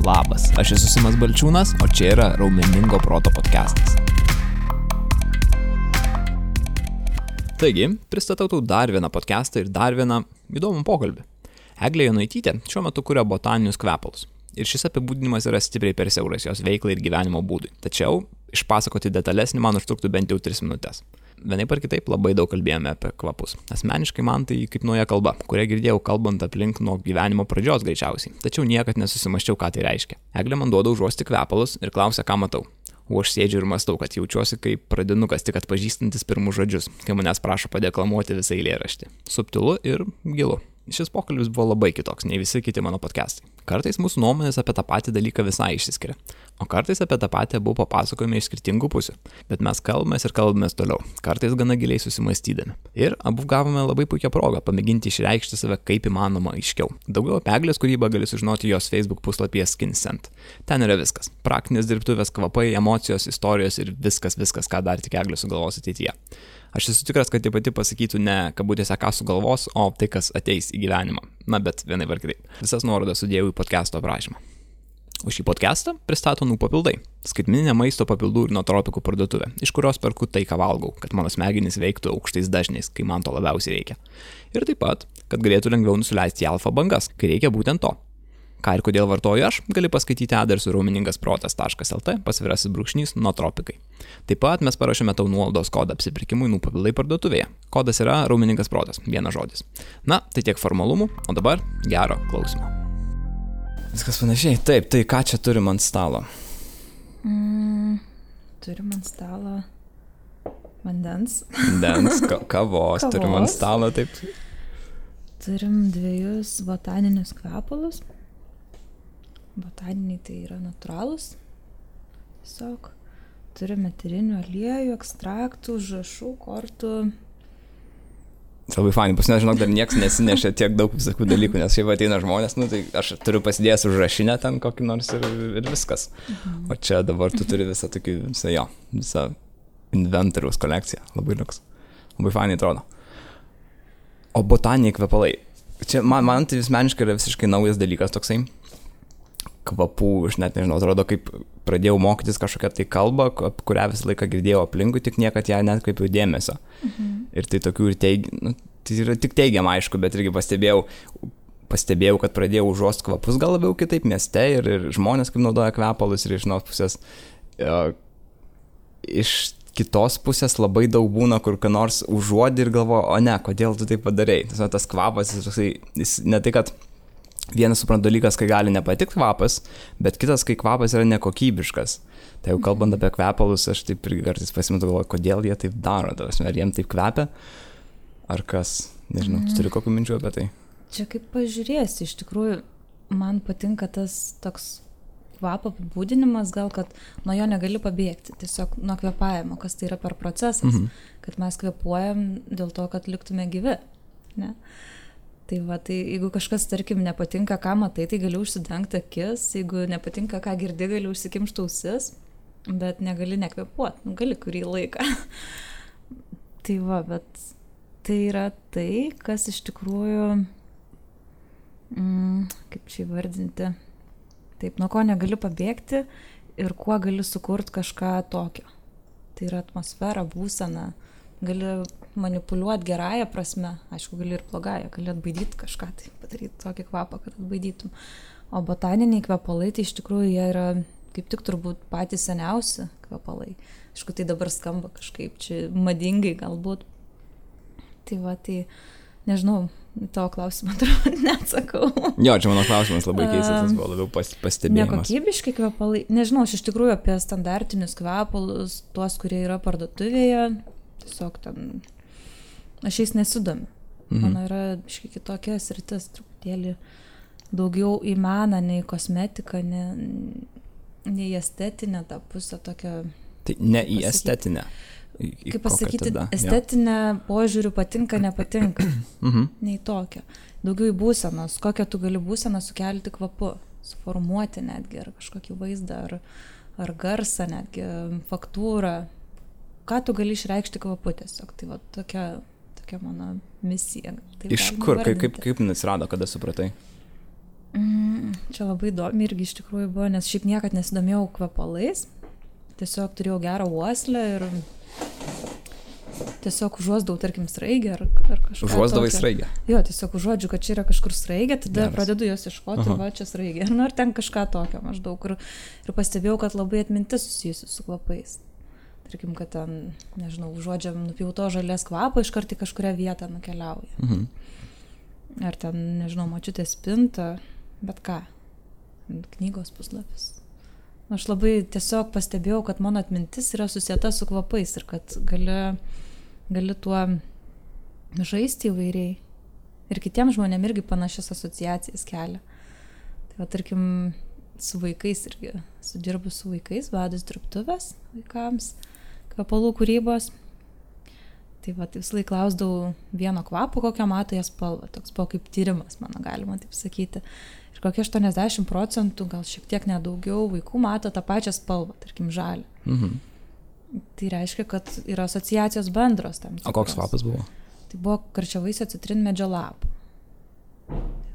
Labas, aš esu Simas Balčiūnas, o čia yra Raumeningo proto podcastas. Taigi, pristatau tau dar vieną podcastą ir dar vieną įdomų pokalbį. Eglė Jonaitytė šiuo metu kuria botaninius kvepalus. Ir šis apibūdinimas yra stipriai per siauras jos veiklai ir gyvenimo būdui. Tačiau išpasakoti detalesnį man užtruktų bent jau 3 minutės. Vienaip ar kitaip labai daug kalbėjome apie kvapus. Asmeniškai man tai kaip nauja kalba, kurią girdėjau kalbant aplink nuo gyvenimo pradžios greičiausiai. Tačiau niekad nesusimaščiau, ką tai reiškia. Eglė man duoda užuosti kvepalus ir klausia, ką matau. O aš sėdžiu ir mąstau, kad jaučiuosi kaip pradinukas tik atpažįstantis pirmus žodžius, kai manęs prašo padeklamuoti visą eilėraštį. Subtilu ir gilu. Šis pokalbis buvo labai kitoks nei visi kiti mano podcastai. Kartais mūsų nuomonės apie tą patį dalyką visai išsiskiria, o kartais apie tą patį abu papasakojame iš skirtingų pusių. Bet mes kalbamės toliau, kartais gana giliai susimastydami. Ir abu gavome labai puikią progą pamėginti išreikšti save kaip įmanoma aiškiau. Daugiau apie Eglės kūrybą gali sužinoti jos Facebook puslapyje SkinScent. Ten yra viskas. Praktinės dirbtuvės, kvapai, emocijos, istorijos ir viskas, ką dar tik Eglė sugalvos ateityje. Aš esu tikras, kad ji pati pasakytų ne kabutėse ką sugalvos, o tai, kas ateis į gyvenimą. Na, bet vienai var kitaip. Visas nuorodas sudėjau į podcast'o aprašymą. O šį podcast'ą pristato Papildai. Skaitmeninė maisto papildų ir nootropikų parduotuvė, iš kurios perku tai, ką valgau, kad mano smegenys veiktų aukštais dažniais, kai man to labiausiai reikia. Ir taip pat, kad galėtų lengviau nusileisti į alfa bangas, kai reikia būtent to. Ką ir kodėl vartoju aš, gali paskaityti adresu raumeningasprotas.lt /nootropikai. Taip pat mes parašėme tau nuolaidos kodą apsipirkimui Papildai parduotuvėje. Kodas yra Raumeningas protas, vienas žodis. Na, tai tiek formalumų, o dabar gero klausimo. Viskas panašiai. Taip, tai ką čia turim ant stalo? Turim ant stalo vandens. Kavos, turim ant stalo, taip. Turim 2 botaninius kvepalus. Botaniniai tai yra natūralūs. Tiesiog turime eterinių aliejų, ekstraktų, žašų, kortų. Labai fainai, pas mane, žinok, dar nieks nesinešė tiek daug visokių dalykų, nes šiaip ateina žmonės, tai aš turiu pasidėjęs užrašinę ten kokį nors ir viskas. O čia dabar tu turi visą inventoriaus kolekciją. Labai liuks. Labai fainai atrodo. O botaniniai kvepalai. Čia man tai asmeniškai yra visiškai naujas dalykas toksai. Kvapų, aš net nežinau, atrodo, kaip pradėjau mokytis kažkokią tai kalbą, kurią visą laiką girdėjau aplinkui, tik niekad ją netkreipiau dėmesio. Ir tai tokių tai yra tik teigiama, aišku, bet irgi pastebėjau, kad pradėjau užuost kvapus gal labiau kitaip mieste ir žmonės kaip naudoja kvepalus ir iš vienos pusės iš kitos pusės labai daug būna, kur ką nors užuodi ir galvoju, o ne, kodėl tu tai padarei. Tas kvapas, jis ne tai, kad vienas suprant dalykas, kai gali nepatikti kvapas, bet kitas, kai kvapas yra nekokybiškas. Tai jau kalbant apie kvepalus, aš taip ir kartais pasimetu galvoju, kodėl jie taip daro, ar jiem taip kvepia, ar kas, nežinau, tu turi kokių minčių apie tai? Čia kaip pažiūrėsi, iš tikrųjų, man patinka tas toks kvapo apibūdinimas, gal kad nuo jo negali pabėgti, tiesiog nuo kvepavimo, kas tai yra per procesas, kad mes kvepuojam dėl to, kad liktume gyvi, ne? Tai jeigu kažkas, tarkim, nepatinka, ką matai, tai gali užsidengti akis, jeigu nepatinka, ką girdi, gali užsikimšti ausis, bet negali nekvepuoti, gali kurį laiką. Bet tai yra tai, kas iš tikrųjų, kaip čia įvardinti, taip, nuo ko negali pabėgti ir kuo gali sukurti kažką tokio. Tai yra atmosfera, būsena, gali manipuliuoti gerąją prasme, aišku, gali ir blogąją, gali atbaidyti kažką, tai padaryti tokį kvapą, kad atbaidytum. O botaniniai kvepalai, tai iš tikrųjų jie yra kaip tik turbūt patys seniausi kvepalai. Aišku, tai dabar skamba kažkaip čia madingai galbūt. Tai nežinau, tavo klausimą turbūt neatsakau. Jo, čia mano klausimas labai keistas, tas buvo labiau pastebėjimas. Nekokybiški kvepalai, nežinau, aš iš tikrųjų apie standartinius kvepalus, tuos, kurie yra parduotuvėje, tiesiog ten, aš jais nesidomiu. Mano yra kitokia sritis, truputėlį daugiau į meną, nei kosmetiką, nei estetinę tą pusę tokią. Tai ne į estetinę. Kaip pasakyti, estetinę požiūrių patinka, nepatinka. Nei tokia. Daugiau į būsenos, kokią tu gali būseną sukelti kvapu, suformuoti netgi, ar kažkokį vaizdą, ar garsą netgi, faktūrą. Ką tu gali išreikšti kvapu tiesiog. Tai tokia mano misija. Iš kur? Kaip atsirado, kada supratai? Čia čia labai įdomi irgi iš tikrųjų buvo, nes šiaip niekad nesidomėjau kvepalais. Tiesiog turėjau gerą uoslę ir tiesiog užuosdavau, tarkim, sraigę ar kažką. Užuosdavai sraigę? Jo, tiesiog užuodžiu, kad čia yra kažkur sraigė, tada Geras. pradedu jos ieškoti, va, čia sraigė. Nu, ar ten kažką tokio maždaug. Ir pastebėjau, kad labai atmintis susijusi su kvapais. Tarkim, kad ten, nežinau, užuodžiam nupjauto žalės kvapą, iškart į kažkurią vietą nukeliauja. Ar ten, nežinau, močiutės spinta, bet ką, knygos puslapis. Aš labai tiesiog pastebėjau, kad mano atmintis yra susieta su kvapais ir kad gali tuo žaisti įvairiai. Ir kitiems žmonėm irgi panašias asociacijas kelia. Tai va, tarkim, su vaikais irgi, sudirbu su vaikais, vedus dirbtuvės vaikams, kvepalų kūrybos. Tai va, visą laiką klausdavau vieno kvapo, kokią mato jas spalvą. Toks buvo kaip tyrimas, mano galima taip sakyti. Ir kokie 80%, gal šiek tiek nedaugiau vaikų mato tą pačią spalvą, tarkim, žalį. Tai reiškia, kad yra asociacijos bendros tam tikros. O koks kvapas buvo? Tai buvo karčiavaisio citrinmedžio lapų.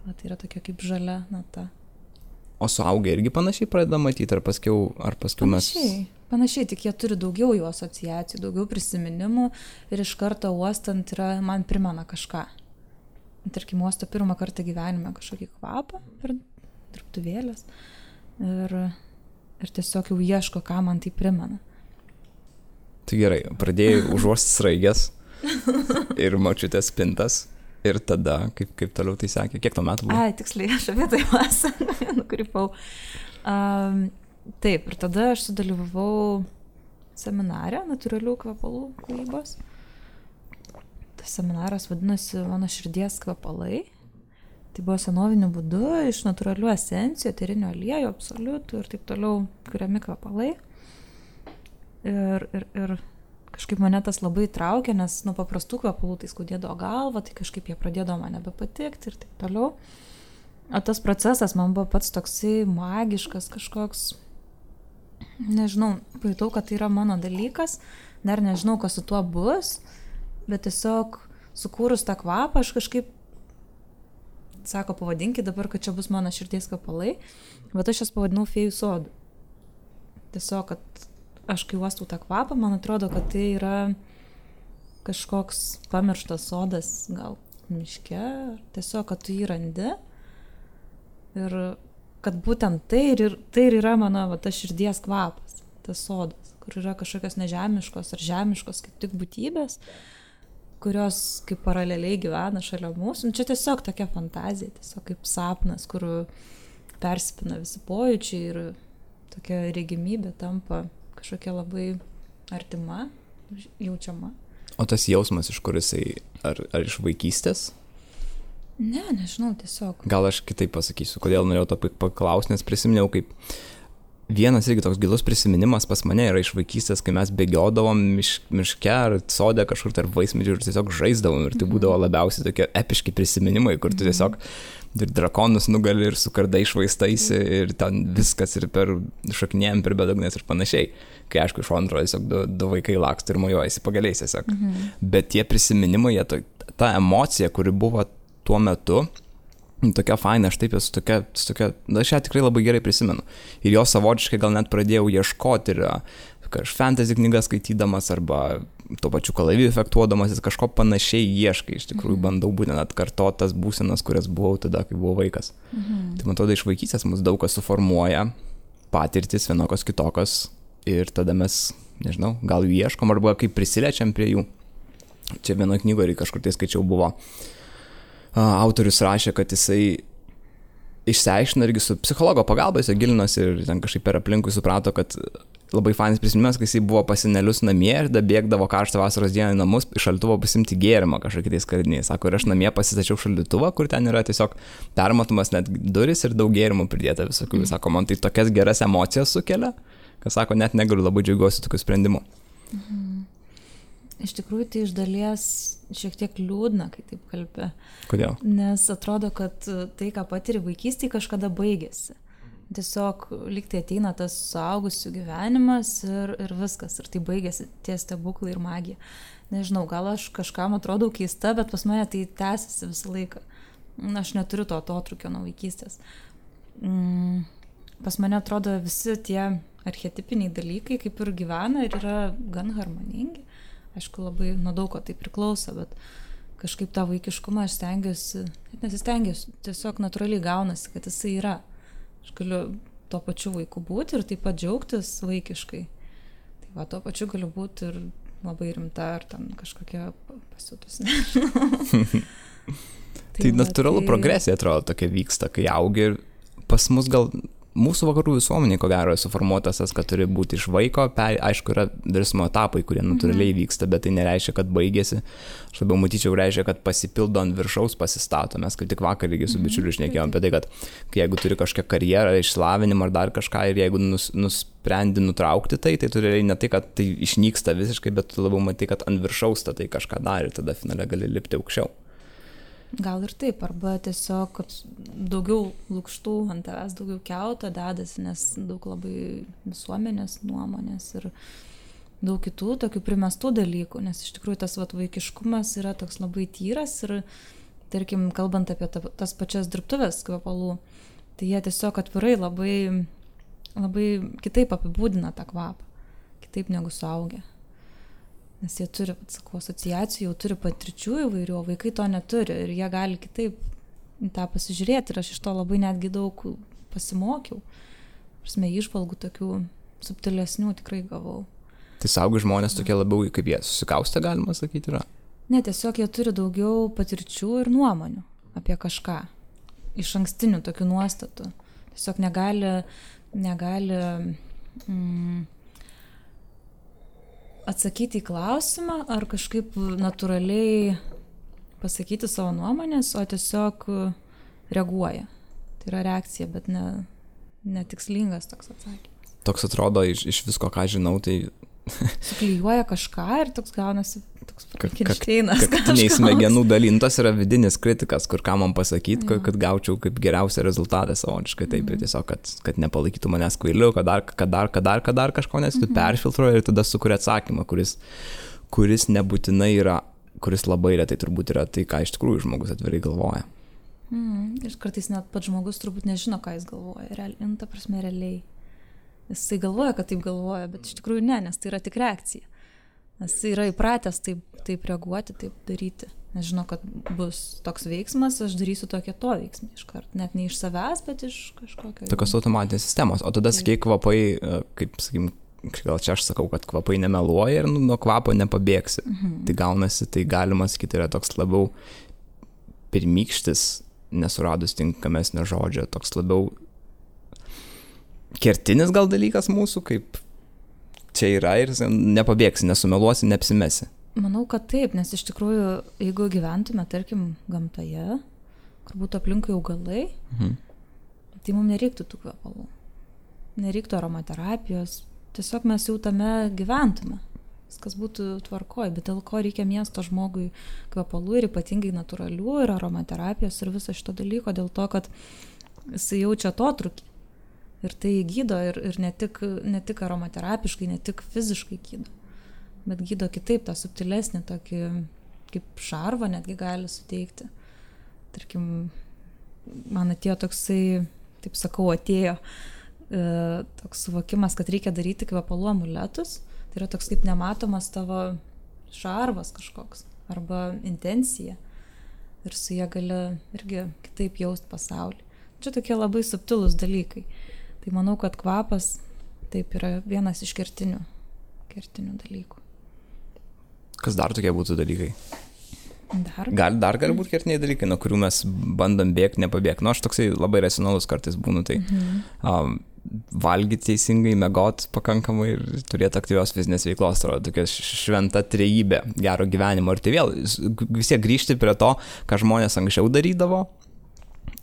Tai yra tokia kaip žalia nata. O suaugę irgi panašiai pradeda matyti, ar paskiau mes... Panašiai, tik jie turi daugiau jų asociacijų, daugiau prisiminimų ir iš karto uostant man primena kažką. Tarkim, uosto pirmą kartą gyvenime kažkokį kvapą per dirbtuvėlės ir tiesiog jau ieško, ką man tai primena. Tai gerai, pradėjai užuosti sraigės ir močiutės spintas ir tada, kaip toliau tai sakė, kiek to metų buvo? Ai, tiksliai, aš apie tai nukrypau. Taip, ir tada aš sudalyvavau seminare natūralių kvepalų kūrybos. Tas seminaras vadinosi Mano širdies kvepalai. Tai buvo senoviniu būdu iš natūralių esencijų, eterinių aliejų, absoliutų ir taip toliau kuriami kvepalai. Ir kažkaip mane tas labai traukė, nes nuo paprastų kvepalų tai skaudėdavo galvą, tai kažkaip jie pradėdavo man nebepatikti ir taip toliau. O tas procesas man buvo pats toksai magiškas kažkoks. Nežinau, pajutau, kad tai yra mano dalykas, dar nežinau, kas su tuo bus, bet tiesiog sukūrus tą kvapą, aš kažkaip, sako, pavadinkit dabar, kad čia bus mano širdies kvepalai, bet aš jas pavadinau fėjų sodu. Tiesiog, kad aš kai uostau tą kvapą, man atrodo, kad tai yra kažkoks pamirštas sodas, gal miške, tiesiog, kad tu jį randi ir kad būtent tai ir yra mano tas širdies kvapas, tas sodas, kur yra kažkokios nežemiškos ar žemiškos kaip tik būtybės, kurios kaip paraleliai gyvena šalia mūsų. Čia tiesiog tokia fantazija, tiesiog kaip sapnas, kur persipina visi pojūčiai ir tokia regimybė tampa kažkokia labai artima, jaučiama. O tas jausmas, iš kur jisai, ar iš vaikystės? Ne, nežinau, tiesiog. Gal aš kitaip pasakysiu, kodėl norėjau to paklausti, nes prisiminiau, kaip vienas irgi toks gilus prisiminimas pas mane yra iš vaikystės, kai mes bėgiodavom miške ar sode kažkur tarp vaismedžių ir tiesiog žaisdavom ir tai būdavo labiausiai tokie epiški prisiminimai, kur tu tiesiog ir drakonus nugali ir su kardai išvaistaisi ir ten viskas ir per šokinėjom per bedugnės ir panašiai. Kai aišku, iš antro tiesiog du vaikai laksto ir mojuojasi pagaliais tiesiog. Bet tie prisiminimai, ta emocija, kuri buvo tuo metu, tokia faina, aš taip esu tokia, aš ją tikrai labai gerai prisimenu. Ir jo savotiškai gal net pradėjau ieškoti ir fantasy knygas skaitydamas arba tuo pačiu kalaviju efektuodamas, kažko panašiai ieškai, iš tikrųjų bandau būtent atkartoti tas būsenas, kurias buvau tada, kai buvau vaikas. Tai man atrodo, iš vaikystės mus daug kas suformuoja, patirtis vienokios kitokios ir tada mes, nežinau, gal jų ieškom arba kaip prisilečiam prie jų. Čia vienoje knygoje kažkur tai skaičiau buvo. Autorius rašė, kad jisai išsiaiškino irgi su psichologo pagalba, jis gilinosi ir ten kažkaip per aplinkui suprato, kad labai fainas prisiminimas, kai jisai buvo pas senelius namie ir bėgdavo karštą vasaros dieną į namus iš šaldytuvo pasimti gėrimą kažkokiais tais kariniais. Sako, ir aš namie pasistačiau šaldytuvą, kur ten yra tiesiog permatomas net duris ir daug gėrimų pridėta visokių. Sako, man tai tokias geras emocijas sukelia, kad sako, net negaliu, labai džiaugiuosi tokiu sprendimu. Iš tikrųjų, tai iš dalies šiek tiek liūdna, kai taip kalbė. Kodėl? Nes atrodo, kad tai, ką patiri vaikystėje, kažkada baigėsi. Tiesiog lyg tai ateina tas suaugusių gyvenimas ir viskas. Ir tai baigėsi tie stebuklai ir magija. Nežinau, gal aš kažkam atrodau keista, bet pas mane tai tęsiasi visą laiką. Aš neturiu to atotrūkio nuo vaikystės. pas mane atrodo visi tie archetipiniai dalykai kaip ir gyvena ir yra gan harmoningi. Aišku, labai nuo daug ko tai priklauso, bet kažkaip tą vaikiškumą aš stengiuosi, net nesistengiuosi, tiesiog natūraliai gaunasi, kad jisai yra. Aš galiu tuo pačiu vaiku būti ir taip pat džiaugtis vaikiškai. Tai va, tuo pačiu galiu būti ir labai rimta, ar ten kažkokia pasiutus. Tai natūralu progresija atrodo tokia vyksta, kai augi ir pas mus gal mūsų vakarų visuomeniai, ko gero, suformuotas tas, kad turi būti iš vaiko, aišku, yra virsmo etapai, kurie natūraliai vyksta, bet tai nereiškia, kad baigėsi. Aš labiau matyčiau, reiškia, kad pasipildo ant viršaus pasistato. Mes kaip tik vakar irgi su bičiuliu šnekėjom apie tai, kad jeigu turi kažkokią karjerą, išsilavinimą ar dar kažką ir jeigu nusprendi nutraukti tai turi ne tai, kad tai išnyksta visiškai, bet tu labiau matai, kad ant viršaus tai kažką dar ir tada finale gali lipti aukščiau. Gal ir taip, arba tiesiog, kad daugiau lukštų ant tavęs, daugiau kiauto dedasi, nes daug labai visuomenės nuomonės ir daug kitų tokių primestų dalykų, nes iš tikrųjų tas vaikiškumas yra toks labai tyras ir, tarkim, kalbant apie tas pačias dirbtuvės kvepalų, tai jie tiesiog atvirai labai, labai kitaip apibūdina tą kvapą, kitaip negu suaugę. Nes jie turi, sakau, asociacijų, jau turi patirčių įvairių, o vaikai to neturi ir jie gali kitaip tą pasižiūrėti ir aš iš to labai netgi daug pasimokiau. Prasme, įžvalgų tokių subtilesnių tikrai gavau. Tai saugi žmonės tokie labiau, kaip jie susikaustę, galima sakyti, yra? Ne, tiesiog jie turi daugiau patirčių ir nuomonių apie kažką. Iš ankstinių tokių nuostatų. Tiesiog negali atsakyti į klausimą ar kažkaip natūraliai pasakyti savo nuomonės, o tiesiog reaguoja. Tai yra reakcija, bet netikslingas toks atsakymas. Toks atrodo iš visko, ką žinau, tai... Suklijuoja kažką ir toks gaunasi toks Frankenšteinas. Kaktiniai smegenų dalintas yra vidinis kritikas, kur ką man pasakyti, kad gaučiau kaip geriausią rezultatą savotiškai. Taip, ir tiesiog, kad nepalaikytų manęs kvailiu, kad dar kažko, nes tu perfiltruoji ir tada sukuria atsakymą, kuris nebūtinai yra, kuris labai retai turbūt yra tai, ką iš tikrųjų žmogus atvirai galvoja. Ir kartais net pats žmogus turbūt nežino, ką jis galvoja. Ta prasme, realiai. Jisai galvoja, kad taip galvoja, bet iš tikrųjų ne, nes tai yra tik reakcija. Nes jisai yra įpratęs taip reaguoti, taip daryti. Nes žino, kad bus toks veiksmas, aš darysiu tokią to veiksmą iškart. Net ne iš savęs, bet iš kažkokio... Tokios automatinės sistemos. O tada, sakai, kvapai, kaip, sakykim, gal čia aš sakau, kad kvapai nemeluoja ir nuo kvapo nepabėgsi. Tai gaunasi, tai galima sakyti, yra toks labiau pirmykštis, nesuradus tinkamesnio žodžio, toks labiau kertinis gal dalykas mūsų, kaip čia yra ir nepabėgsi, nesumeluosi, neapsimesi. Manau, kad taip, nes iš tikrųjų, jeigu gyventume, tarkim, gamtoje, kur būtų aplinkui augalai, tai mums nereiktų tų kvepalų. Nereiktų aromaterapijos. Tiesiog mes jau tame gyventume. Viskas būtų tvarkoj, bet dėl ko reikia miesto žmogui kvepalų ir ypatingai natūralių ir aromaterapijos ir viso šito dalyko, dėl to, kad jisai jaučia atotrūkį. Ir tai gydo ir ne tik aromaterapiškai, ne tik fiziškai gydo, bet gydo kitaip, tą subtilesnį tokį, kaip šarvą netgi gali suteikti. Tarkim, man atėjo toksai, taip sakau, toks suvokimas, kad reikia daryti kvepalų amuletus. Tai yra toks kaip nematomas tavo šarvas kažkoks arba intencija. Ir su jie gali irgi kitaip jausti pasaulį. Čia tokie labai subtilūs dalykai. Tai manau, kad kvapas taip yra vienas iš kertinių dalykų. Kas dar tokie būtų dalykai? Dar gali būti kertiniai dalykai, nuo kurių mes bandom bėgti, nepabėgti. Aš toksai labai racionalus kartais būnu, tai valgyti teisingai, miegot pakankamai ir turėti aktyvios fizinės veiklos, tai tokia šventa trejybė gero gyvenimo. Ir tai vėl vis tiek grįžti prie to, ką žmonės anksčiau darydavo.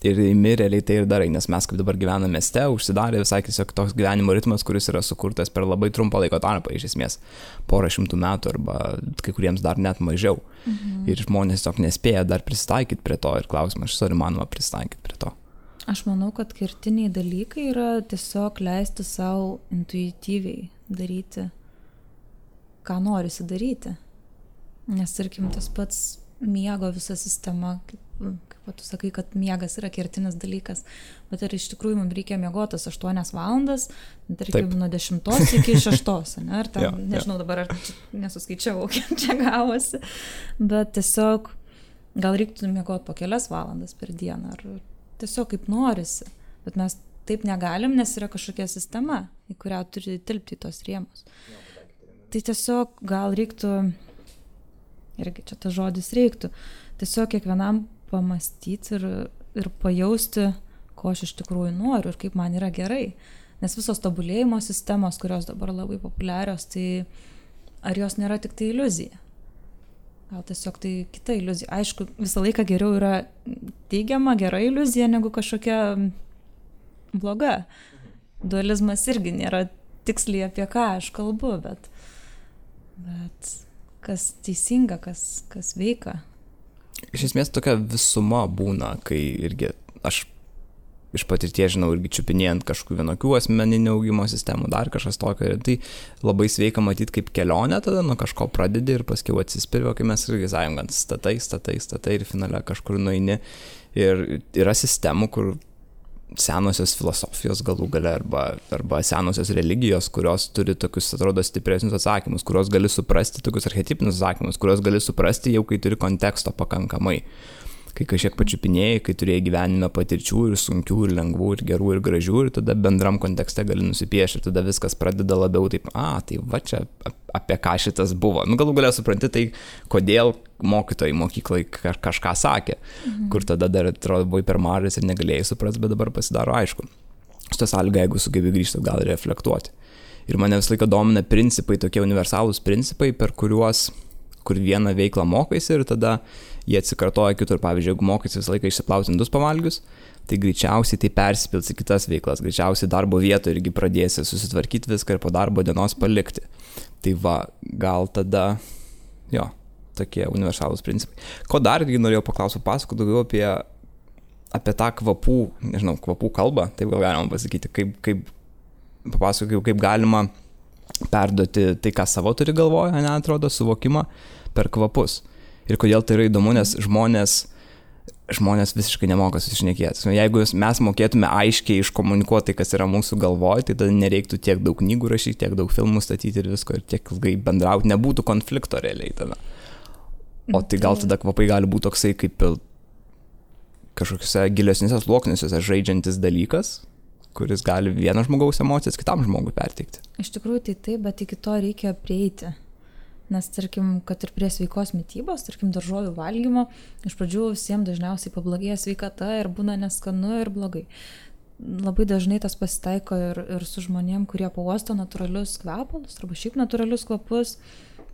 Ir realiai tai ir darai, nes mes kaip dabar gyvename mieste, užsidarė visai tiesiog toks gyvenimo ritmas, kuris yra sukurtas per labai trumpą laiko tarpą, iš esmės, 100 metų arba kai kuriems dar net mažiau. Ir žmonės tiesiog nespėja dar prisitaikyti prie to ir klausimas, ar įmanoma prisitaikyti prie to. Aš manau, kad kertiniai dalykai yra tiesiog leisti savo intuityviai daryti, ką norisi daryti. Nes, tarkim, tas pats miego visa sistema, kaip o tu sakai, kad miegas yra kertinis dalykas, bet ar iš tikrųjų mums reikia miegotas 8 valandas, tarkim, nuo 10 iki 6, ne? Ar tam, nežinau dabar, ar nesuskaičiavau, kiek čia gavosi, bet tiesiog gal reiktų miegoti po kelias valandas per dieną, ar tiesiog kaip norisi, bet mes taip negalim, nes yra kažkokia sistema, į kurią turi tilpti tos rėmus. Tai tiesiog gal reiktų, irgi čia tas žodis reiktų, tiesiog kiekvienam pamastyti ir pajausti, ko aš iš tikrųjų noriu ir kaip man yra gerai. Nes visos tobulėjimo sistemos, kurios dabar labai populiarios, tai ar jos nėra tik tai iliuzija? Gal tiesiog tai kita iliuzija. Aišku, visą laiką geriau yra teigiama, gera iliuzija, negu kažkokia bloga. Dualizmas irgi nėra tiksliai apie ką aš kalbu, bet kas teisinga, kas veika. Iš esmės tokia visuma būna, kai irgi aš iš patirties žinau irgi čiupinėjant kažkokių vienokių asmeninių augimo sistemų, dar kažkas tokio, ir tai labai sveika matyti kaip kelionę, tada nuo kažko pradedi ir paskiau atsispiri, kai mes irgi sąjungant statai ir finale kažkur nueini. Ir yra sistemų, kur senosios filosofijos galų gale arba senosios religijos, kurios turi tokius, atrodo, stipresnius atsakymus, kurios gali suprasti, tokius archetipinius atsakymus, kurios gali suprasti jau, kai turi konteksto pakankamai. Kai kažkiek pačiupinėjai, kai turėjai gyvenime patirčių ir sunkių, ir lengvų, ir gerų, ir gražių, ir tada bendram kontekste gali nusipiešti, ir tada viskas pradeda labiau taip, tai va čia apie ką šitas buvo. Galų gale supranti tai, kodėl mokytojai mokyklai kažką sakė, kur tada dar atrodo buvai per mažas ir negalėjai suprasti, bet dabar pasidaro aišku. Šitą sąlygą, jeigu sugebi grįžti, gal reflektuoti. Ir mane visą laiką domina principai, tokie universalūs principai, kur vieną veiklą mokaisi ir tada jie atsikartoja kitur. Pavyzdžiui, jeigu mokaisi visą laiką išsiplauti indus pavalgius, tai greičiausiai tai persipils į kitas veiklas. Greičiausiai darbo vietoje irgi pradėsi susitvarkyti viską ir po darbo dienos palikti. Tai va, gal tada, tokie universalūs principai. Ko dar norėjau paklausyti, pasakoti daugiau apie tą kvapų kalbą, taip gal galima pasakyti, kaip galima perduoti tai, ką savo turi galvoje, atrodo, suvokimą per kvapus. Ir kodėl tai yra įdomu, nes žmonės visiškai nemoka susišnekėti. Jeigu mes mokėtume aiškiai iškomunikuoti tai, kas yra mūsų galvoje, tai tada nereiktų tiek daug knygų rašyti, tiek daug filmų statyti ir visko, ir tiek ilgai bendrauti, nebūtų konflikto realiai tada. O tai gal tada kvapai gali būti toksai kaip kažkokiuose gilesniuose sluoksniuose žaidžiantis dalykas, kuris gali vieno žmogaus emocijas kitam žmogui perteikti. Iš tikrųjų tai taip, bet iki to reikia prieiti. Nes, tarkim, kad ir prie sveikos mitybos, tarkim, daržovių valgymo, iš pradžių visiems dažniausiai pablogėja sveikata ir būna neskanu ir blogai. Labai dažnai tas pasitaiko ir su žmonėm, kurie pauosto natūralius kvepalus, arba šiaip natūralius kvapus,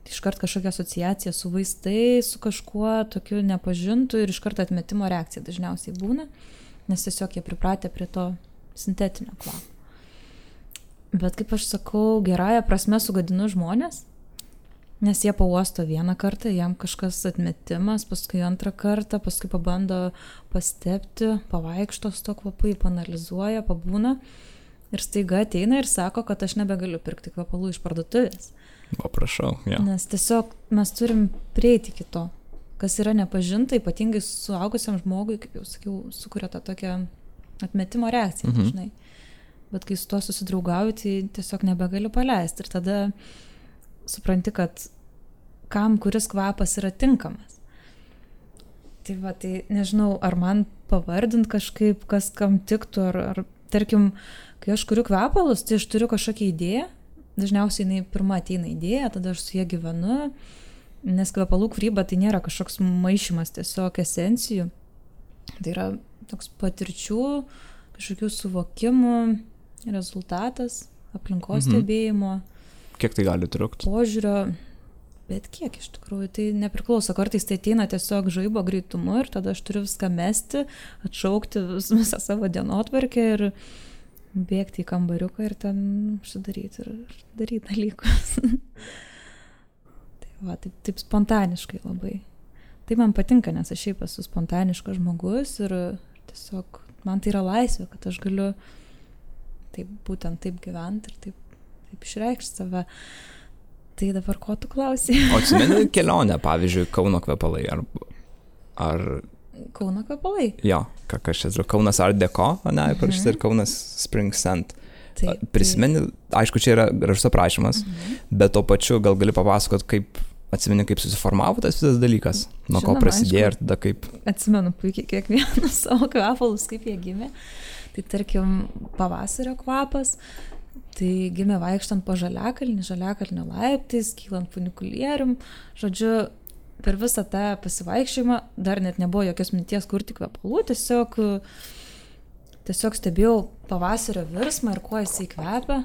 iškart kažkokia asociacija su vaistai, su kažkuo tokiu nepažintu ir iškart atmetimo reakcija dažniausiai būna, nes tiesiog jie pripratę prie to sintetinio kvapo. Bet kaip aš sakau, gerąja prasme sugadinu žmonės, nes jie pauosto vieną kartą, jam kažkas atmetimas, paskui antrą kartą, paskui pabando pastepti, pavaikšto su to kvapu, panalizuoja, pabūna ir staiga ateina ir sako, kad aš nebegaliu pirkti kvapalų iš parduotuvės. O prašau, Nes tiesiog mes turim prieiti iki to, kas yra nepažinta, ypatingai suaugusiam žmogui, kaip jau sakiau, sukuria tą tokią atmetimo reakciją dažnai. Bet kai su tuo susidraugauju, tai tiesiog nebegaliu paleisti. Ir tada supranti, kad kam kuris kvapas yra tinkamas. Tai va, tai nežinau, ar man pavardint kažkaip, kas kam tiktų, ar tarkim, kai aš kuriu kvepalus, tai aš turiu kažkokią idėją. Dažniausiai jinai pirma ateina idėja, tada aš su jie gyvenu, nes kvepalų kūryba tai nėra kažkoks maišymas, tiesiog esencijų. Tai yra toks patirčių, kažkokių suvokimų rezultatas, aplinkos stebėjimo. Kiek tai gali trukti? Požiūrio, bet kiek iš tikrųjų, tai nepriklauso. Kartais tai ateina tiesiog žaibo greitumu ir tada aš turiu viską mesti, atšaukti visą savo dienotvarkę ir bėgti į kambariuką ir ten užsidaryti ir daryti dalykus. Tai va, taip spontaniškai labai. Tai man patinka, nes aš šiaip esu spontaniškas žmogus ir tiesiog man tai yra laisvė, kad aš galiu būtent taip gyventi ir taip išreikšti save. Tai dabar ko tu klausai? O atsimeni kelionę, pavyzdžiui, Kauno kvepalai ar Kauno kvepalai. Jo, kas čia, Kaunas Art Deco, ne, parašyta, ir Kaunas Spring Scent. Prisimeni, aišku, čia yra gražus aprašymas, bet to pačiu gal gali papasakot, atsimeni, kaip susiformavo tas visas dalykas, nuo ko prasidėjo ir tada kaip... Atsimenu puikiai kiekvieną savo kvepalus, kaip jie gimė. Tai tarkim, pavasario kvapas, tai gimė vaikštant po žaliakalnio laiptais, kylant funikulierium. Žodžiu, per visą tą pasivaikščiojimą dar net nebuvo jokios minties kurti kvepalų, tiesiog stebėjau pavasario virsmą ir kuo jisai kvepia.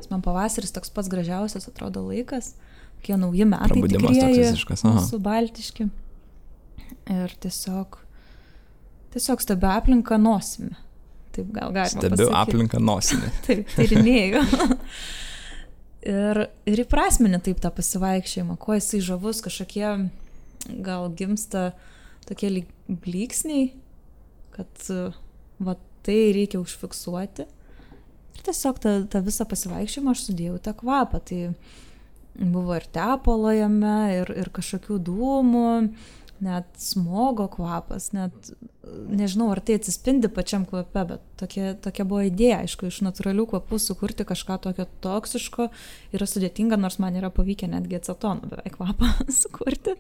Nes man pavasaris toks pats gražiausias atrodo laikas. Kokie nauji metai tikrieji, mūsų baltiški. Ir tiesiog stebiu aplinką nosimi. Taip gal galima pasakyti. Stebiu aplinką nosimi. Taip, tyrinėju. ir įprasmini taip tą pasivaikščiojimą, kuo jisai žavus, kažkokie gal gimsta tokie blyksniai, kad va tai reikia užfiksuoti. Ir tiesiog tą visą pasivaikščiojimą aš sudėjau tą kvapą. Tai buvo ir tepalo jame, ir kažkokių dūmų, net smogo kvapas, net nežinau, ar tai atsispindi pačiam kvape, bet tokia buvo idėja, aišku, iš natūralių kvapų sukurti kažką tokio toksiško yra sudėtinga, nors man yra pavykę netgi acetono beveik kvapą sukurti.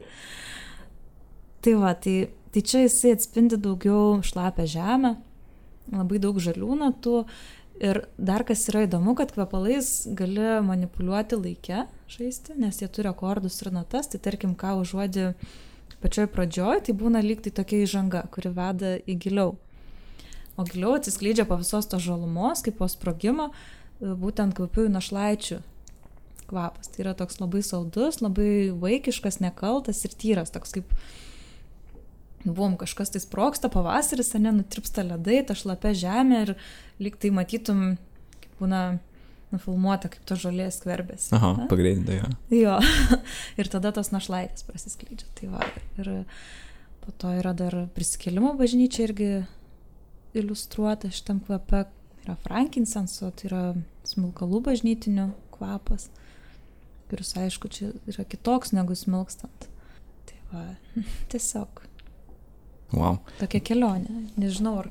Tai va, tai čia jisai atspindi daugiau šlapę žemę, labai daug žalių natų. Ir dar kas yra įdomu, kad kvepalais gali manipuliuoti laike, žaisti, nes jie turi akordus ir natas, tai tarkim, ką užuodi pačioj pradžioj, tai būna lyg tai tokia įžanga, kuri veda į giliau. O giliau atsiskleidžia po visos tos žalumos, kaip po sprogimo, būtent kvapiųjų našlaičių kvapas. Tai yra toks labai saldus, labai vaikiškas, nekaltas ir tyras, toks kaip kažkas tai sprogsta, pavasaris, nutirpsta ledai, ta šlapia žemė ir lyg tai matytum, kaip būna nufilmuota, kaip to žolės skverbėsi. Aha, pagreitinta, jo. Jo, ir tada tos našlaitės prasiskleidžia. Tai va, ir po to yra dar prisikėlimo bažnyčia irgi iliustruota šitam kvape. Yra frankincenso, tai yra smilkalų bažnytinių kvapas, kuris, aišku, čia yra kitoks negu smilkstant. Tai va, tiesiog. Wow. Tokia kelionė. Nežinau, ar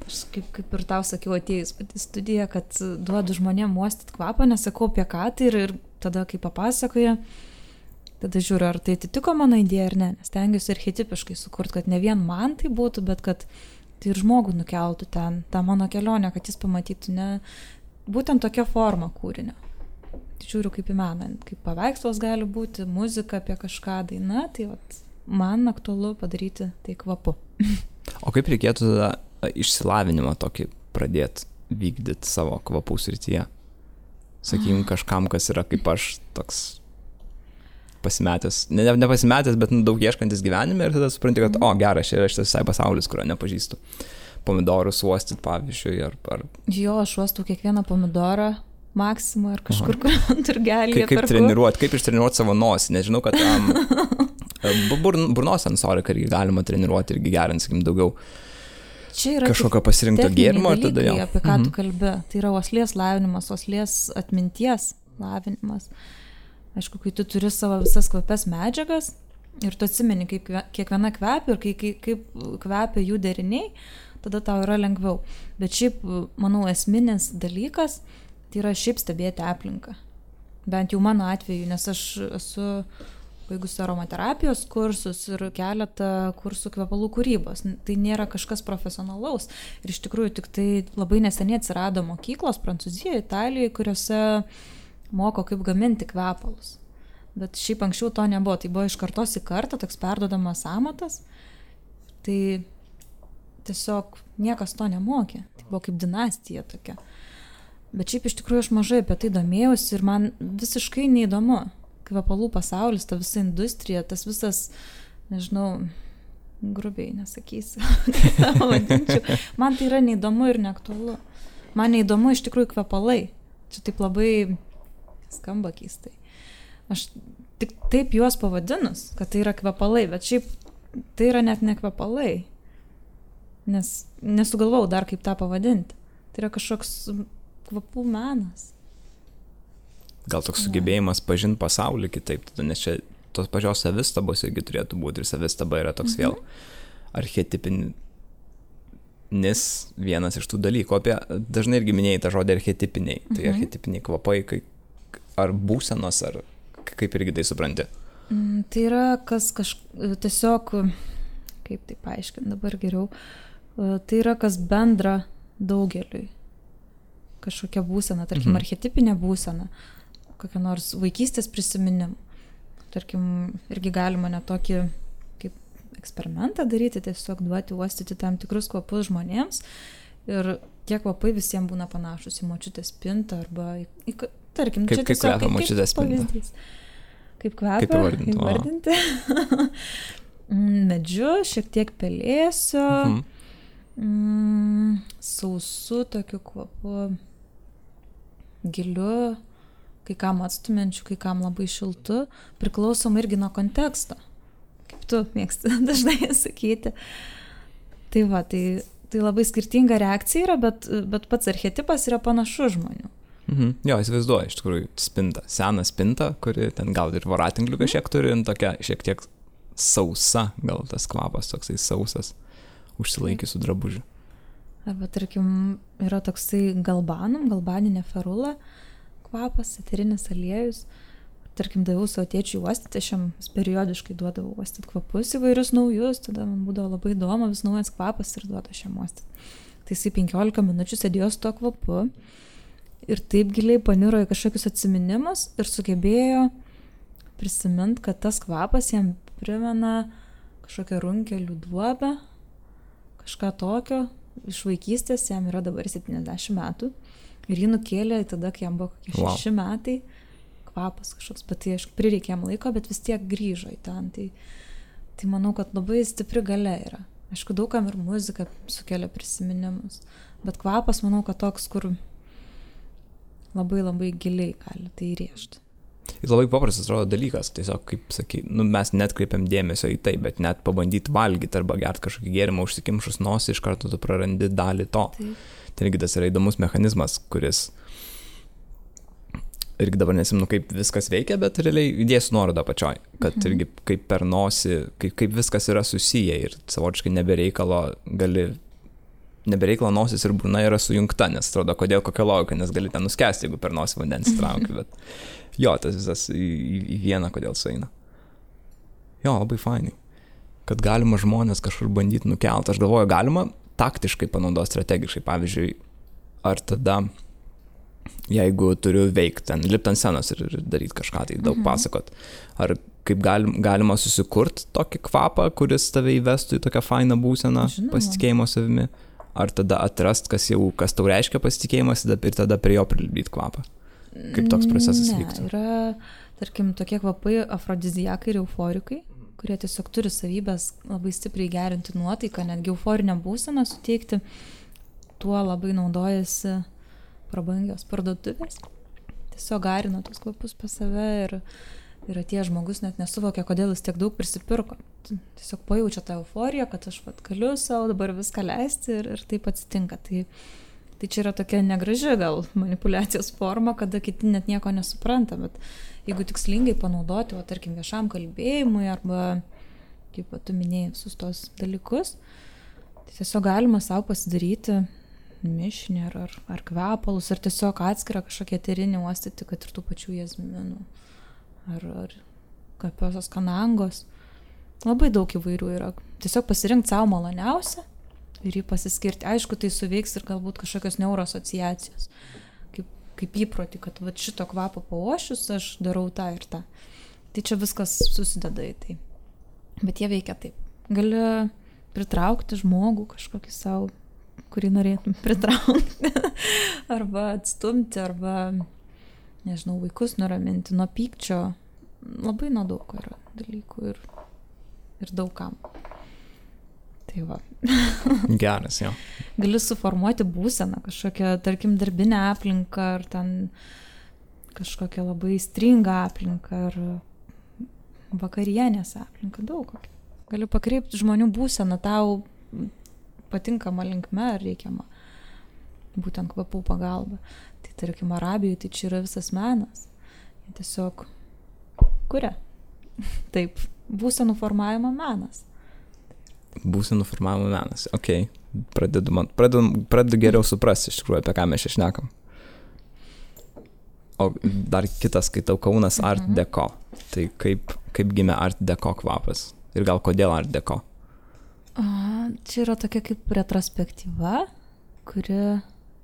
aš kaip ir tau sakiau atėjus į studiją, kad duodu žmonėm uostyti kvapą, nesakau apie ką tai ir tada, kai papasakoja, tada žiūriu, ar tai atitiko mano idėją ar ne, nes stengiuosi archetipiškai sukurti, kad ne vien man tai būtų, bet kad tai ir žmogų nukeltų ten, tą mano kelionę, kad jis pamatytų ne būtent tokia forma kūrinio. Tai žiūriu kaip į meną, kaip paveikslas gali būti, muzika apie kažką, daina, tai vat man aktualu padaryti tai kvapu. O kaip reikėtų tada išsilavinimą tokį pradėti vykdyti savo kvapų srityje? Sakykim, kažkam, kas yra kaip aš toks pasimetęs, ne pasimetęs, bet daug ieškantis gyvenime ir tada supranti, kad, geras, čia yra šitas visai pasaulis, kurio nepažįstu. Pomidorus uostyti, pavyzdžiui, ar... Jo, aš uostau kiekvieną pomidorą Maksimą ar kažkur, kur turgelį. Kaip treniruoti, kaip ištreniruoti savo nosį, nežinau, kad burnos sensoriką irgi galima treniruoti irgi gerint, sakykim, daugiau kažkokio pasirinkto gėrimo. Dalykai, apie ką tu kalbi. Tai yra uoslės lavinimas, uoslės atminties lavinimas. Aišku, kai tu turi savo visas kvapes medžiagas ir tu atsimeni, kaip kiekviena kvepia ir kaip kvepia jų deriniai, tada tau yra lengviau. Bet šiaip, manau, esminis dalykas tai yra šiaip stebėti aplinką. Bent jau mano atveju, nes aš esu baigusi aromaterapijos kursus ir keletą kursų kvepalų kūrybos. Tai nėra kažkas profesionalaus. Ir iš tikrųjų tik tai labai neseniai atsirado mokyklos Prancūzijoje, Italijoje, kuriuose moko kaip gaminti kvepalus. Bet šiaip anksčiau to nebuvo. Tai buvo iš kartos į kartą toks perduodamas amatas. Tai tiesiog niekas to nemokė. Tai buvo kaip dinastija tokia. Bet šiaip iš tikrųjų aš mažai apie tai domėjausi ir man visiškai neįdomu. Kvepalų pasaulis, ta visa industrija, tas visas, nežinau, grubiai nesakysiu, man tai yra neįdomu ir neaktualu. Man neįdomu iš tikrųjų kvepalai. Čia taip labai skamba keistai. Aš tik taip juos pavadinus, kad tai yra kvepalai, bet šiaip tai yra net ne kvepalai. Nes nesugalvau dar kaip tą pavadinti. Tai yra kažkoks kvapų menas. Gal toks sugebėjimas pažinti pasaulį kitaip, nes čia tos pačios savistabos irgi turėtų būti ir savistaba yra toks vėl archetipinis vienas iš tų dalykų. Dažnai irgi minėjai tą žodį archetipiniai. Tai archetipiniai kvapai, ar būsenos, ar kaip irgi tai supranti? Tai yra tiesiog, kaip tai paaiškinti dabar geriau, tai yra kas bendra daugeliui. Kažkokia būsena, tarkim, archetipinė būsena, kokia nors vaikystės prisiminimų. Tarkim, irgi galima net tokį kaip eksperimentą daryti, tiesiog duoti uostyti tam tikrus kvapus žmonėms ir tie kvapai visiems būna panašus į močiutės spintą arba tarkim, kaip kvepia močiutės spinta. Kaip kvepia, įvardinti. Medžiu, šiek tiek pelėsio, sausu tokiu kvapu, giliu, kai kam atstumiančiu, kai kam labai šiltu, priklausom irgi nuo konteksto, kaip tu mėgsti dažnai sakyti. Tai va, tai labai skirtinga reakcija yra, bet pats archetipas yra panašus žmonių. Jo, įsivaizduoju, iš tikrųjų, spinta, seną spintą, kuri ten gal ir voratinklių kažkiek turi, tokia šiek tiek sausa, gal tas kvapas toksai sausas, užsilaikysiu drabužių. Arba, tarkim, yra toksai galbaninė ferula kvapas, eterinis aliejus. Tarkim, daviau savo tėčiui uostyti, aš jam periodiškai duodavau uostyti kvapus įvairius naujus, tada man būdavo labai įdomu, vis naujas kvapas ir duodu aš jam uostyti. Tai jisai 15 minučių sėdėjo su tuo kvapu ir taip giliai paniro į kažkokius atsiminimus ir sugebėjo prisiminti, kad tas kvapas jam primena kažkokią runkelių duobę, kažką tokio, iš vaikystės, jam yra dabar 70 metų ir jį nukėlė tada, kai jam buvo kokie 6 metai, kvapas kažkoks, bet tai aišku prireikė jam laiko, bet vis tiek grįžo į ten, tai manau, kad labai stipri galia yra. Aišku, daugam ir muzika sukelia prisiminimus, bet kvapas manau, kad toks, kur labai labai giliai gali tai įrėžti. Ir labai paprastas atrodo dalykas, tiesiog, kaip sakai, mes net kreipiam dėmesio į tai, bet net pabandyti valgyti arba gerti kažkokį gėrimą, užsikimšus nosį, iš karto tu prarandi dalį to. Taip. Tai irgi tas yra įdomus mechanizmas, kuris irgi dabar nesimenu, kaip viskas veikia, bet realiai įdėsiu nuorodą pačioj, kad irgi kaip per nosį, kaip viskas yra susiję ir savotiškai nebereikalo nosis ir burna yra sujungta, nes atrodo, kodėl kokia logika, nes gali ten nuskesti, jeigu per nosį vandens trauki, bet jo, tas visas į vieną, kodėl sueina. Jo, labai fainai, kad galima žmonės kažkur bandyti nukelti. Aš galvoju, galima taktiškai panaudoti strategiškai, pavyzdžiui, ar tada, jeigu turiu veikti ten, lipti ant scenos ir daryti kažką, tai daug pasakot, ar kaip galima susikurti tokį kvapą, kuris tave įvestų į tokią fainą būseną, pasitikėjimo savimi, ar tada atrast, kas tau reiškia pasitikėjimas ir tada prie jo prilipdyti kvapą. Kaip toks procesas vyktų? Yra, tarkim, tokie kvapai afrodiziakai ir euforikai, kurie tiesiog turi savybės labai stipriai gerinti nuotaiką, netgi euforinę būseną suteikti, tuo labai naudojasi prabangios parduotuvės. Tiesiog garina tos kvapus pas save ir atėjęs žmogus net nesuvokia, kodėl jis tiek daug prisipirko. Tiesiog pajaučia tą euforiją, kad aš galiu savo dabar viską leisti ir taip atsitinka. Tai čia yra tokia negraži gal manipuliacijos forma, kada kiti net nieko nesupranta, bet jeigu tikslingai panaudoti, tarkim, viešam kalbėjimui arba, kaip tu minėjai, visus tos dalykus, tai tiesiog galima savo pasidaryti mišinį ar kvepalus, ar tiesiog atskirą kažkokią eterinį uostyti, kad ir tų pačių jazminų, ar kapiosios kanangos. Labai daug įvairių yra. Tiesiog pasirinkti savo maloniausią ir jį pasiskirti. Aišku, tai suveiks ir galbūt kažkokios neuroasociacijos. Kaip įprotį, kad šito kvapo pauošius aš darau tą ir tą. Tai čia viskas susideda į tai. Bet jie veikia taip. Gali pritraukti žmogų kažkokį savo, kurį norėtum pritraukti. Arba atstumti, arba, nežinau, vaikus nuraminti nuo pykčio. Labai nuo daug yra dalykų ir daugam. Tai va. Geras, jo. Gali suformuoti būseną, kažkokią, tarkim, darbinę aplinką, ar ten kažkokią labai stringą aplinką, ar vakarienės aplinką, daug kokią. Gali pakreipti žmonių būseną tau patinkama linkme ar reikiama, būtent kvapų pagalba. Tai tarkim, Arabijoje tai čia yra visas menas. Jie tiesiog kuria. Taip, būsenų formavimo menas. Būsenų formavimo menas. Ok, pradedu geriau suprasti iš tikrųjų, apie ką mes čia šnekam. O dar kitas skaitau Kaunas Art Deco. Tai kaip gimė Art Deco kvapas? Ir gal kodėl Art Deco? Čia yra tokia kaip retrospektyva,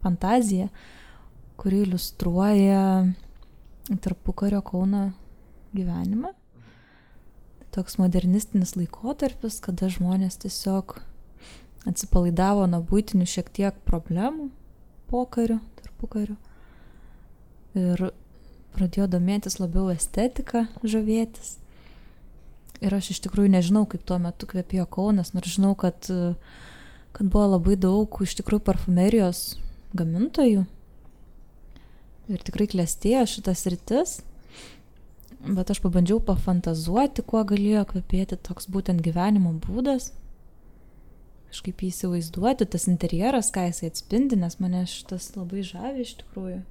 fantazija, kuri iliustruoja tarpukario Kauno gyvenimą. Toks modernistinis laikotarpis, kada žmonės tiesiog atsipalaidavo nuo buitinių šiek tiek problemų tarpukariu. Ir pradėjo domėtis labiau estetika, žavėtis. Ir aš iš tikrųjų nežinau, kaip tuo metu kvepėjo Kaunas, nors žinau, kad buvo labai daug iš tikrųjų parfumerijos gamintojų. Ir tikrai klestėjo šitas sritis. Bet aš pabandžiau pafantazuoti, kuo galėjo kvepėti toks būtent gyvenimo būdas. Kažkaip jį įsivaizduoti, tas interjeras, ką jisai atspindi, nes mane šitas labai žavi iš tikrųjų.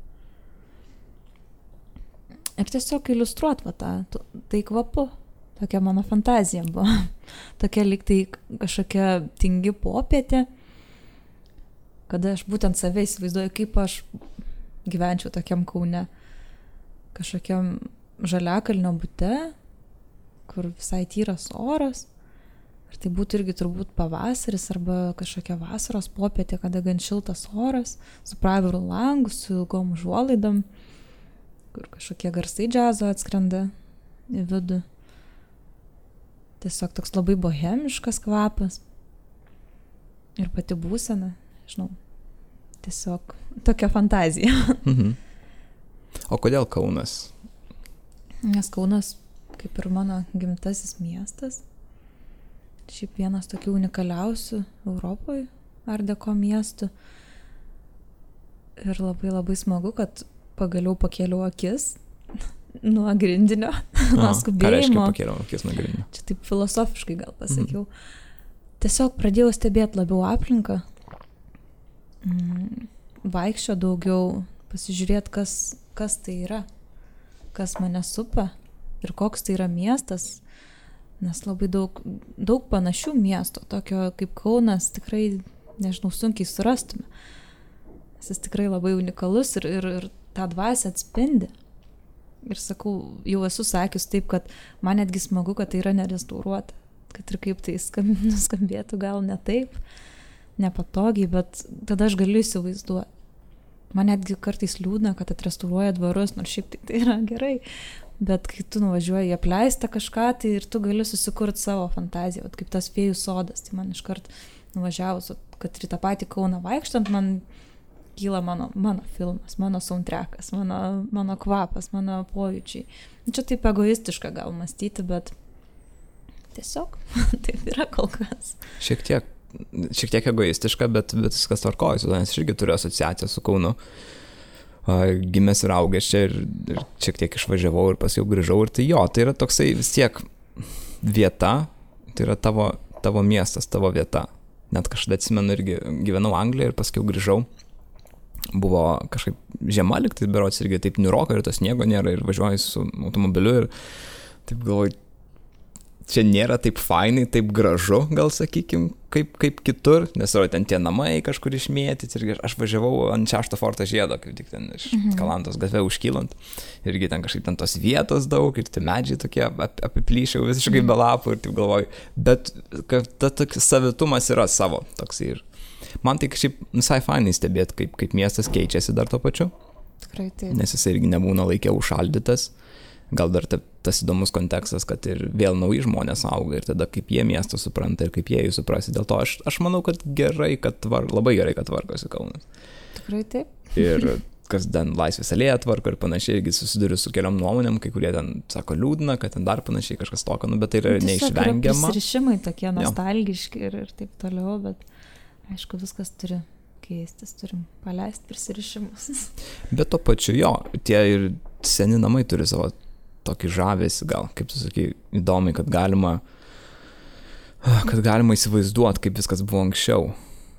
Ir tiesiog iliustruot tai kvapu. Tokia mano fantazija buvo. Tokia lyg tai kažkokia tingi popietė, kada aš būtent save įsivaizduoju, kaip aš gyvenčiau tokiam Kaune. Kažkokiam žaliakalnio bute, kur visai tyras oras. Ir tai būtų irgi turbūt pavasaris arba kažkokia vasaros popietė, kada gan šiltas oras, su praviru langu, su ilgom užuolaidom, kur kažkokie garsai džiazo atskrenda į vidų. Tiesiog toks labai bohemiškas kvapas. Ir pati būsena, žinau, tiesiog tokia fantazija. O kodėl Kaunas? Nes Kaunas, kaip ir mano gimtasis miestas, šiaip vienas tokių unikaliausių Europoje Art Deco miestų. Ir labai labai smagu, kad pagaliau pakėliau akis nuo grindinio, nuo skubėjimo. Ką reiškia pakėliau akis nuo grindinio? Čia taip filosofiškai gal pasakiau. Tiesiog pradėjau stebėti labiau aplinką, vaikščio daugiau, pasižiūrėti, kas tai yra, kas mane supa ir koks tai yra miestas, nes labai daug panašių miestų, tokio kaip Kaunas tikrai, nežinau, sunkiai surastume. Jis tikrai labai unikalus ir tą dvasią atspindi. Ir sakau, jau esu sakius taip, kad man netgi smagu, kad tai yra nerestauruota, kad ir kaip tai nuskambėtų gal ne taip, nepatogiai, bet tada aš galiu įsivaizduoti. Man netgi kartais liūdna, kad atrestauruoja dvarus, nors šiaip tai yra gerai, bet kai tu nuvažiuoji į apleistą kažką, tai ir tu gali susikurti savo fantaziją, kaip tas fėjų sodas. Tai man iškart nuvažiavus, kad ir tą patį Kauną vaikštant, man kyla mano filmas, mano soundtrackas, mano kvapas, mano pojūčiai. Čia taip egoistiška gal mąstyti, bet tiesiog taip yra kol kas. Šiek tiek egoistiška, bet viskas tvarkoja, nes aš irgi turiu asociaciją su Kaunu. Gimęs ir augęs čia ir šiek tiek išvažiavau ir paskui grįžau. Ir tai tai yra toksai vis tiek vieta, tai yra tavo miestas, tavo vieta. Net kažkada atsimenu irgi gyvenau Anglijoje ir paskui grįžau. Buvo kažkaip žiema liktai, berods irgi taip niūroka ir to sniego nėra ir važiuoju su automobiliu ir taip galvoju, čia nėra taip fainai, taip gražu, gal sakykim, kaip kitur, nes yra ten tie namai kažkur išmėtyti ir aš važiavau ant 6 forto žiedo, kaip tik ten iš Kalantos gatve užkylant, irgi ten kažkaip ten tos vietos daug ir tie medžiai tokie apiplyšiau visiškai be lapų ir taip galvoju, bet tas savitumas yra savo toks ir man tai kažkaip visai fainai stebėti, kaip miestas keičiasi dar tuo pačiu. Tikrai taip. Nes jisai irgi nebūna laikė užšaldytas. Gal dar tas įdomus kontekstas, kad ir vėl nauji žmonės auga ir tada kaip jie miestą supranta ir kaip jie jį suprasi. Dėl to aš manau, kad labai gerai, kad tvarkosi Kaunas. Tikrai taip. Ir kas ten Laisvės alėja tvarko ir panašiai, irgi susiduriu su keliom nuomonėm, kai kurie ten sako liūdna, kad ten dar panašiai kažkas tokio, bet tai yra neišvengiama. Tiesiog yra prisirišimai tokie nostalgiški ir taip toliau, bet aišku, viskas turi keistis, turim paleisti prisirišimus. Bet to pačiu tie ir seni namai turi savo tokį žavesį, gal, kaip tu sakai, įdomi, kad galima įsivaizduoti, kaip viskas buvo anksčiau,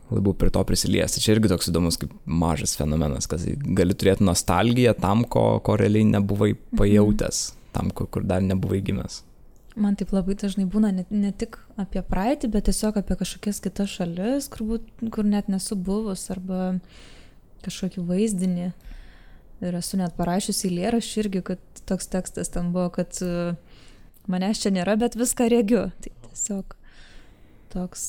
labiau prie to prisiliesti. Čia irgi toks įdomus kaip mažas fenomenas, kad gali turėti nostalgiją tam, ko realiai nebuvai pajautęs, tam, kur dar nebuvai gimęs. Man taip labai dažnai būna ne tik apie praeitį, bet tiesiog apie kažkokias kitas šalis, kur net nesu buvus, arba kažkokį vaizdinį. Ir esu net parašiusi eilėraštį irgi, kad toks tekstas ten buvo, kad manęs čia nėra, bet viską regiu. Tai tiesiog toks,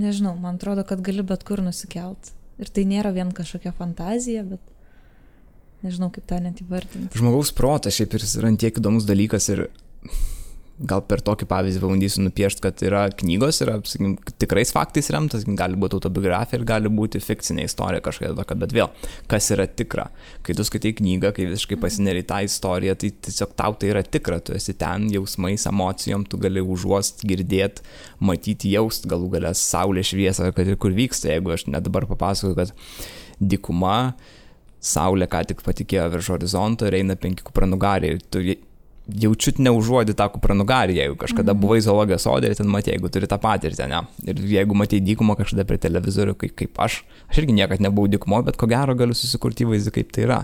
nežinau, man atrodo, kad gali bet kur nusikelt. Ir tai nėra vien kažkokia fantazija, bet nežinau, kaip tą net įvardinti. Žmogaus protas šiaip ir yra tiek įdomus dalykas ir gal per tokį pavyzdį pabandysiu nupiešti, kad yra knygos, yra, sakykim, tikrais faktais remtas, gali būti autobiografija ir gali būti fikcinė istorija kažkokia tokia, bet vėl, kas yra tikra? Kai tu skaitai knygą, kai visiškai pasineri tą istoriją, tai tiesiog tau tai yra tikra, tu esi ten jausmais, emocijom, tu gali užuost, girdėti, matyti, jaust, galų galę saulės šviesą, kad ir kur vyksta, jeigu aš net dabar papasakoju, kad dykuma, saulė ką tik patikėjo virš horizonto ir eina 5 kupranugariai ir tu jaučiut neužuodi tą kupranugarį, jeigu kažkada buvai zoologijos sode ir ten matė, jeigu turi tą patirtį, ne? Ir jeigu matė dykumą kažkada prie televizorių, kaip aš irgi niekad nebuvau dykumo, bet ko gero galiu susikurti įvaizdį, kaip tai yra.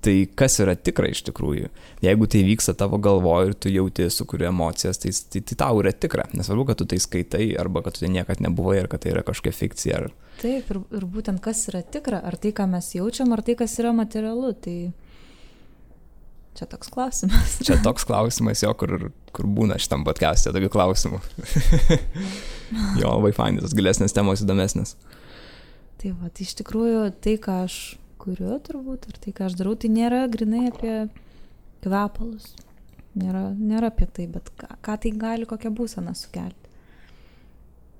Tai kas yra tikra iš tikrųjų? Jeigu tai vyksta tavo galvoje ir tu jauti, sukuri emocijas, tai tau yra tikra. Nesvarbu, kad tu tai skaitai, arba kad tu tai niekad nebuvai, ar kad tai yra kažkokia fikcija. Taip, ir būtent kas yra tikra, ar tai, ką mes jaučiam, ar tai, kas yra materialu, tai čia toks klausimas. Čia toks klausimas, jo, kur būna šitam podcast'e tokių klausimų. Jo, labai fainai, tos gilesnės temos įdomesnės. Tai va, tai iš tikrųjų tai, ką aš kuriu turbūt, ar tai, ką aš darau, tai nėra grinai apie kvepalus. Nėra apie tai, bet ką tai gali, kokią būseną sukelti.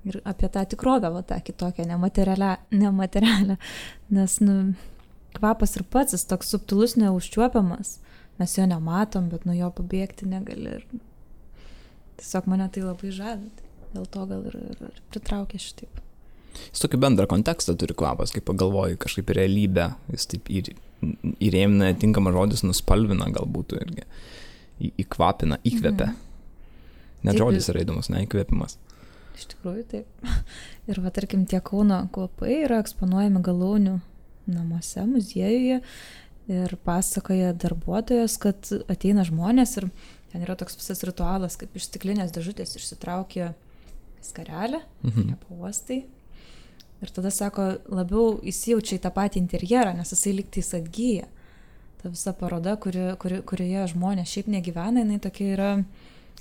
Ir apie tą tikrovę, va, tą kitokią, nematerialią. Nes, kvapas ir pats, jis toks subtilus, neužčiuopiamas. Mes jo nematom, bet nuo jo pabėgti negali. Ir tiesiog mane tai labai žavi. Dėl to gal ir pritraukia šitaip. Jis tokį bendrą kontekstą turi kvapas, kaip pagalvoji, kažkaip realybę. Jis taip įrėmina, tinkamas žodis, nuspalvina galbūt irgi. Įkvapina, įkvepia. Net taip, žodis yra įdomus, ne įkvėpimas. Iš tikrųjų taip. Ir va, tarkim, tie Kauno kvapai yra eksponuojami Galaunių namuose, muziejuje. Ir pasakoja darbuotojas, kad ateina žmonės ir ten yra toks visas ritualas, kaip iš stiklinės dėžutės išsitraukia skarelę, ją pauostai. Ir tada sako, labiau įsijaučia į tą patį interjerą, nes jisai lygtais atgyja. Ta visa paroda, kurioje žmonės šiaip negyvena, jinai tokia yra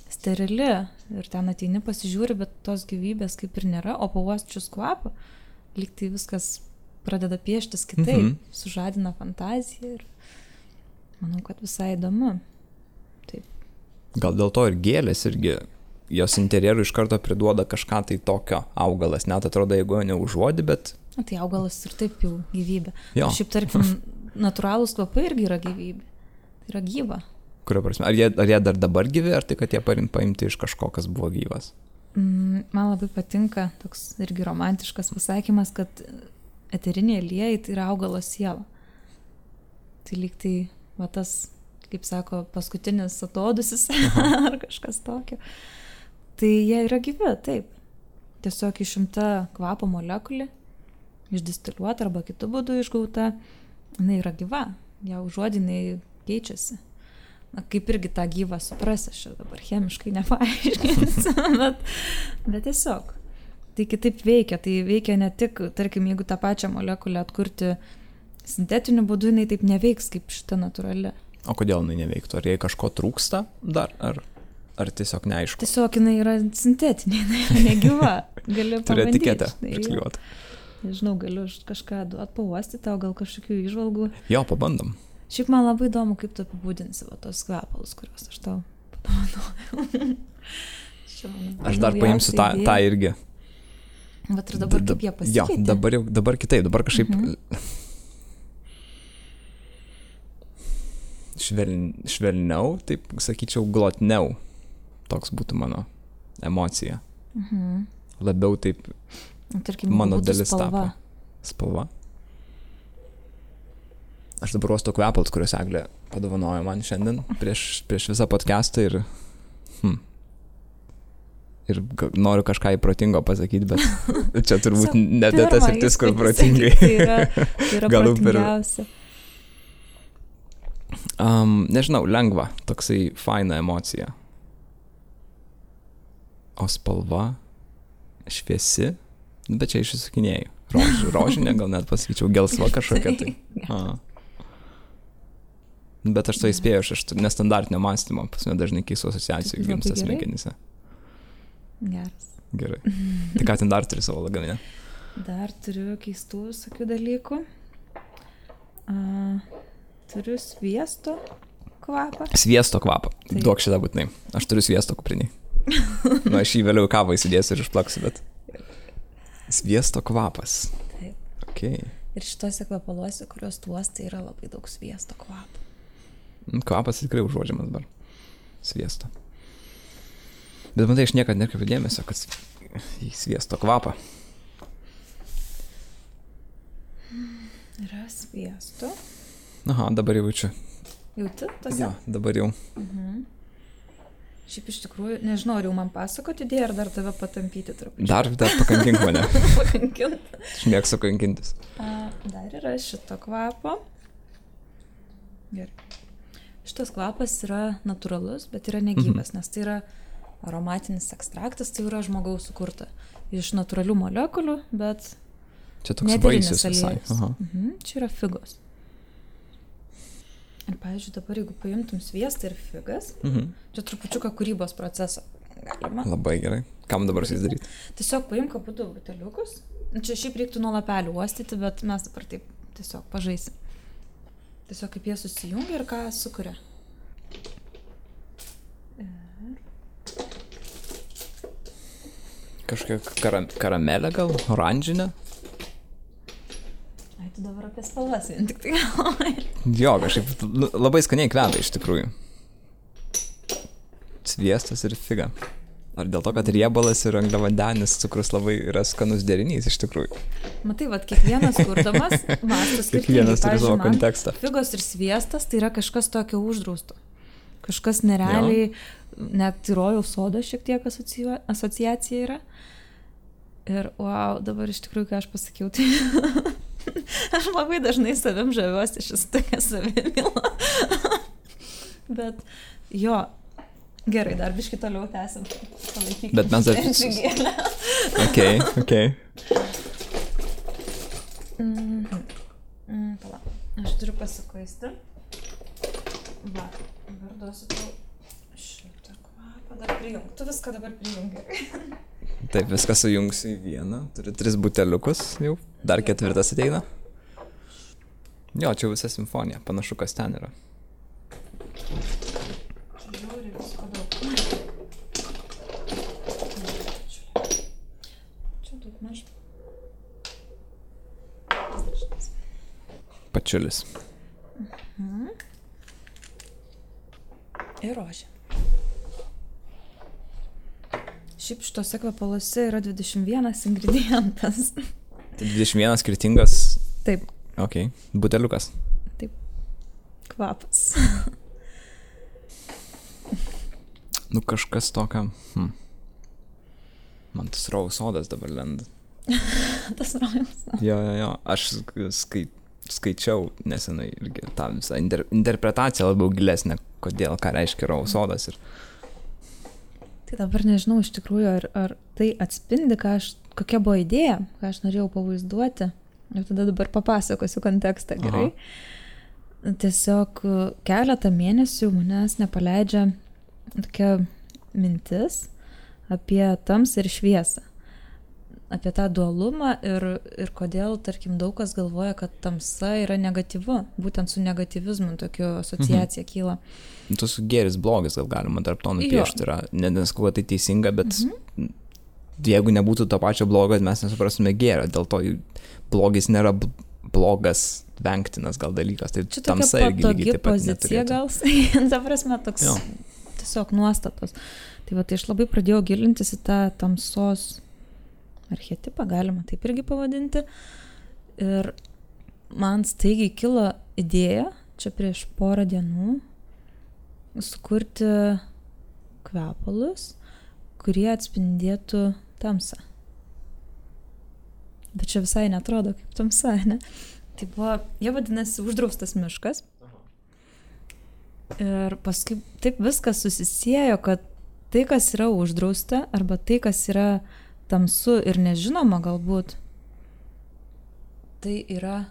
sterili. Ir ten ateini pasižiūri, bet tos gyvybės kaip ir nėra, o pauosčius kvapą, lygtai viskas pradeda pieštis kitaip, sužadina fantaziją ir manau, kad visai įdomu. Taip. Gal dėl to ir gėlės irgi, jos interjerų iš karto priduoda kažką tai tokio augalas, net atrodo, jeigu jo neužuodi, bet... Tai augalas ir taip jau gyvybė. Jo. Šiaip, tarkim, natūralūs kvapai irgi yra gyvybė. Tai yra gyva. Kurio prasme? Ar jie dar dabar gyvi, ar tai, kad jie paimti iš kažko, kas buvo gyvas? Man labai patinka toks irgi romantiškas pasakymas, kad eteriniai aliejai tai yra augalo siela. Tai lyg tai, va tas, kaip sako, paskutinis atodusis ar kažkas tokio. Tai jie yra gyvi, taip. Tiesiog išimta kvapo molekulė, išdistiliuota arba kitų būdų išgauta, jinai yra gyva. Ją užuodinai keičiasi. Na, kaip irgi tą gyvą suprasi, aš dabar chemiškai nepaaiškinsiu, bet tiesiog. Tai kitaip veikia. Tai veikia ne tik, tarkim, jeigu tą pačią molekulę atkurti sintetiniu būdu, jinai taip neveiks kaip šita natūrali. O kodėl jinai neveiktų? Ar jai kažko trūksta dar? Ar tiesiog neaišku? Tiesiog jinai yra sintetinė, jinai yra negyva. Gali turi pabandyti. etiketę priklijuoti. Nežinau, galiu kažką atpauosti tau, gal kažkokių įžvalgų. Jo, pabandom. Šiaip man labai įdomu, kaip tu apibūdinsi va tos kvepalus, kuriuos aš tau padovanojau. Aš dar paimsiu tą irgi. Bet ir dabar kaip jie pasikeitė? Jo, dabar kitaip, dabar kažkaip švelniau, taip sakyčiau, glotniau. Toks būtų mano emocija. Labiau taip tarkim, mano dalis spalva. Tapo. Spalva. Aš dabar uostu kvepalus, kuriuos Eglė padovanojo man šiandien prieš visą podcastą ir noriu kažką įprotingo pasakyti, bet čia turbūt ne tas sritis, kur protingai. Tai yra protingiausia. Nežinau, lengva, toksai faina emocija. O spalva šviesi, bet čia išsisukinėjau. Rožinė, gal net pasakyčiau, gelsva kažkokia tai. Bet aš to įspėjau, aš nestandartinio mąstymo, pas mane dažnai keistų asociacijų gimsta smegenyse. Geras. Gerai. Tai ką ten dar turi savo lagamine? Dar turiu keistų visokių dalykų. Turiu sviesto kvapą. Sviesto kvapą. Taip. Duok šitą būtinai. Aš turiu sviesto kupriniai. Nu, aš jį vėliau į kavą įsidėsiu ir išplaksiu, bet... Sviesto kvapas. Taip. Okay. Ir šitose kvapaluose, kuriuos tuos, tai yra labai daug sviesto kvapo. Kvapas tikrai užuodžiamas dabar. Sviesto. Bet matai, aš niekada nekreipiu dėmesio, kad į sviesto kvapą. Yra sviesto. Aha, dabar jau jaučiu. Jauti tose? Jo, dabar jau. Šiaip iš tikrųjų, nežinau, ar jau man pasakoti idėją, ar dar tave patampyti truputį. Dar pakankink mane. Pakankint. Aš mėgstu kankintis. Dar yra šito kvapo. Gerai. Šitas kvapas yra natūralus, bet yra negyvas, nes tai yra aromatinis ekstraktas, tai yra žmogaus sukurta. Iš natūralių molekulių, bet čia toks vaisius visai. Čia yra figos. Ir, pavyzdžiui, dabar jeigu paimtum sviestą ir figas, čia trupučiuką kūrybos procesą galima. Labai gerai. Kam dabar su jais daryti? Tiesiog paimk abudu buteliukus. Čia šiaip reiktų nuo lapelių uostyti, bet mes dabar taip tiesiog pažaisim. Tiesiog kaip jie susijungia ir ką sukuria. Kažkokia karamelė gal? Oranžinė? Ai, tu dabar apie spalvas vien tik tai galvoji. Jo, kažkaip labai skaniai kvepia iš tikrųjų. Sviestas ir figa. Ar dėl to, kad riebalas ir angliavandenis cukrus labai yra skanus derinys iš tikrųjų? Matai, vat kiekvienas kurdamas mąsto skirtingai. Kiekvienas turi savo kontekstą. Figos ir sviestas tai yra kažkas tokio uždrausto. Kažkas nerealiai, net į rojaus sodą šiek tiek asociacija yra. Ir wow, dabar iš tikrųjų, ką aš pasakiau, tai aš labai dažnai savim žaviuosi, šis tokia savimila. Bet jo, gerai, dar biškį toliau tęsim. Palaikykim. Bet mes dar... Okay. Pala, aš turiu pasikuisti. Va, dabar duosiu tau šitą kvapą, dar prijung. Tu viską dabar prijungi. Taip, viską sujungsiu į vieną. Turiu 3 buteliukus jau. Dar 4 ateina. Jo, čia visa simfonija. Panašu, kas ten yra. Žiūri visko daug. Čia daug maž. Pačiulis. Ir rožė. Šiaip šitose kvapaluose yra 21 ingredientas. Tai 21 skirtingas... Taip. Ok. Buteliukas. Taip. Kvapas. Nu kažkas tokio... Man tas rojaus sodas dabar lenda. Tas rojaus sodas. Jo. Aš skaičiau nesenai irgi tą visą interpretaciją labiau gilesnę, kodėl, ką reiškia rojaus sodas ir... Tai dabar nežinau iš tikrųjų, ar tai atspindi, kokia buvo idėja, ką aš norėjau pavaizduoti. Ir tada dabar papasakosiu kontekstą, gerai. Tiesiog keletą mėnesių manęs nepaleidžia tokia mintis apie tamsą ir šviesą. Apie tą dualumą ir kodėl, tarkim, daug kas galvoja, kad tamsa yra negatyvu. Būtent su negatyvizmu tokiu asociacija kyla. Tu su gėris blogis gal galima tarp to nupiešti. Nesakau, kad tai teisinga, bet jeigu nebūtų to pačio blogo, mes nesuprastume gėrio. Dėl to blogis nėra blogas, vengtinas gal dalykas. Tai čia tamsa irgi lygiai taip pat pozicija gal. Ta prasme, toks tiesiog nuostatos. Tai va, tai aš labai pradėjau gilintis į tą tamsos archetipą, galima taip irgi pavadinti. Ir man staigiai kilo idėja, čia prieš porą dienų, sukurti kvepalus, kurie atspindėtų tamsą. Bet čia visai netrodo kaip tamsa, ne? Tai buvo, jie vadinasi uždraustas miškas. Ir paskui taip viskas susisiejo, kad tai, kas yra uždrausta, arba tai, kas yra tamsu ir nežinoma galbūt, tai yra,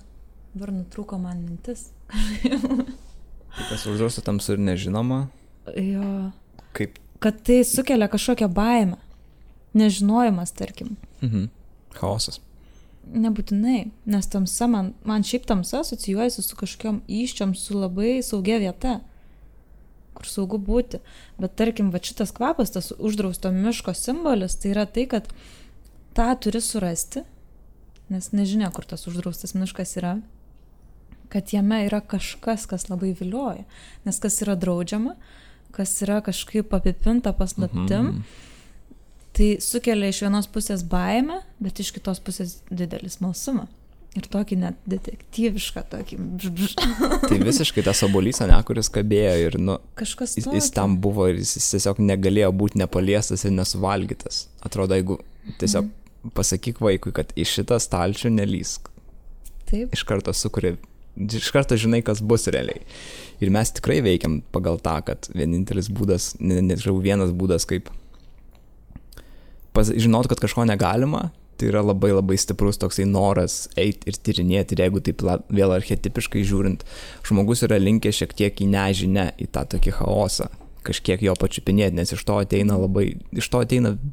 dabar nutrūko man mintis. Tai kas uždrausta tamsu ir nežinoma? Jo. Kaip? Kad tai sukelia kažkokią baimę. Nežinojimas, tarkim. Chaosas. Nebūtinai, nes tamsa, man šiaip tamsa asocijuojasi su kažkokiom iščiom, su labai saugia vieta, kur saugu būti. Bet tarkim, va šitas kvapas, tas uždrausto miško simbolis, tai yra tai, kad tą turi surasti, nes nežinia, kur tas uždraustas miškas yra, kad jame yra kažkas, kas labai vilioja. Nes kas yra draudžiama, kas yra kažkaip apipinta paslaptim, tai sukelia iš vienos pusės baimę, bet iš kitos pusės didelį smalsumą. Ir tokį net detektyvišką, tokį... Tai visiškai tas obuolys, ne, kuris kabėjo ir, kažkas jis tam buvo ir jis tiesiog negalėjo būti nepaliestas ir nesuvalgytas. Atrodo, jeigu tiesiog pasakyk vaikui, kad į šitą stalčių nelįsk. Taip. Iš karto žinai, kas bus realiai. Ir mes tikrai veikiam pagal tą, kad vienintelis būdas, vienas būdas, kaip žinot, kad kažko negalima, tai yra labai labai stiprus toksai noras eiti ir tyrinėti. Ir jeigu taip vėl archetipiškai žiūrint, žmogus yra linkęs šiek tiek į nežinę, į tą tokį chaosą, kažkiek jo pačiupinėti, nes iš to ateina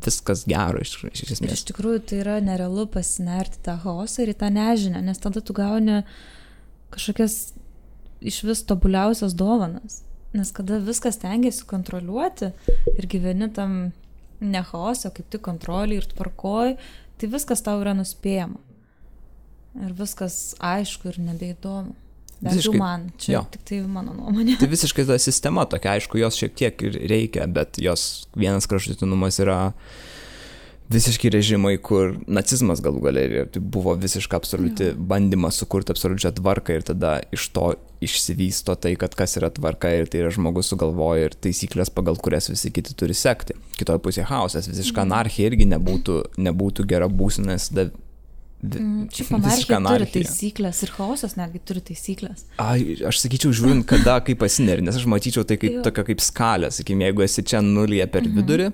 viskas gero iš esmės. Ir iš tikrųjų tai yra nerealu pasinerti tą chaosą ir į tą nežinę, nes tada tu gauni kažkokias iš vis tobuliausias dovanas. Nes kada viskas tengiasi kontroliuoti ir gyveni tam ne chaose, kaip tik kontrolį ir tvarkoj, tai viskas tau yra nuspėjama. Ir viskas aišku ir nebeįdomu. Bent jau man, čia tik tai mano nuomonė. Tai visiškai ta sistema tokia, aišku, jos šiek tiek ir reikia, bet jos vienas kraštutinumas yra visiškai režimai, kur nacizmas galų gale tai buvo visiškai absoliuti bandymas sukurti absoliučią tvarką ir tada iš to išsivysto tai, kad kas yra tvarka ir tai yra žmogus sugalvoja ir taisyklės, pagal kurias visi kiti turi sekti. Kitoje pusėje chaosas, visiška anarchija irgi nebūtų gera būsena, nes Šiaip anarchija turi taisyklės ir chaosas netgi turi taisyklės. Aš sakyčiau, žiūrint, kada kaip pasineri, nes aš matyčiau tai kaip tokia kaip skalė, sakykime, jeigu esi čia nulyje per vidurį,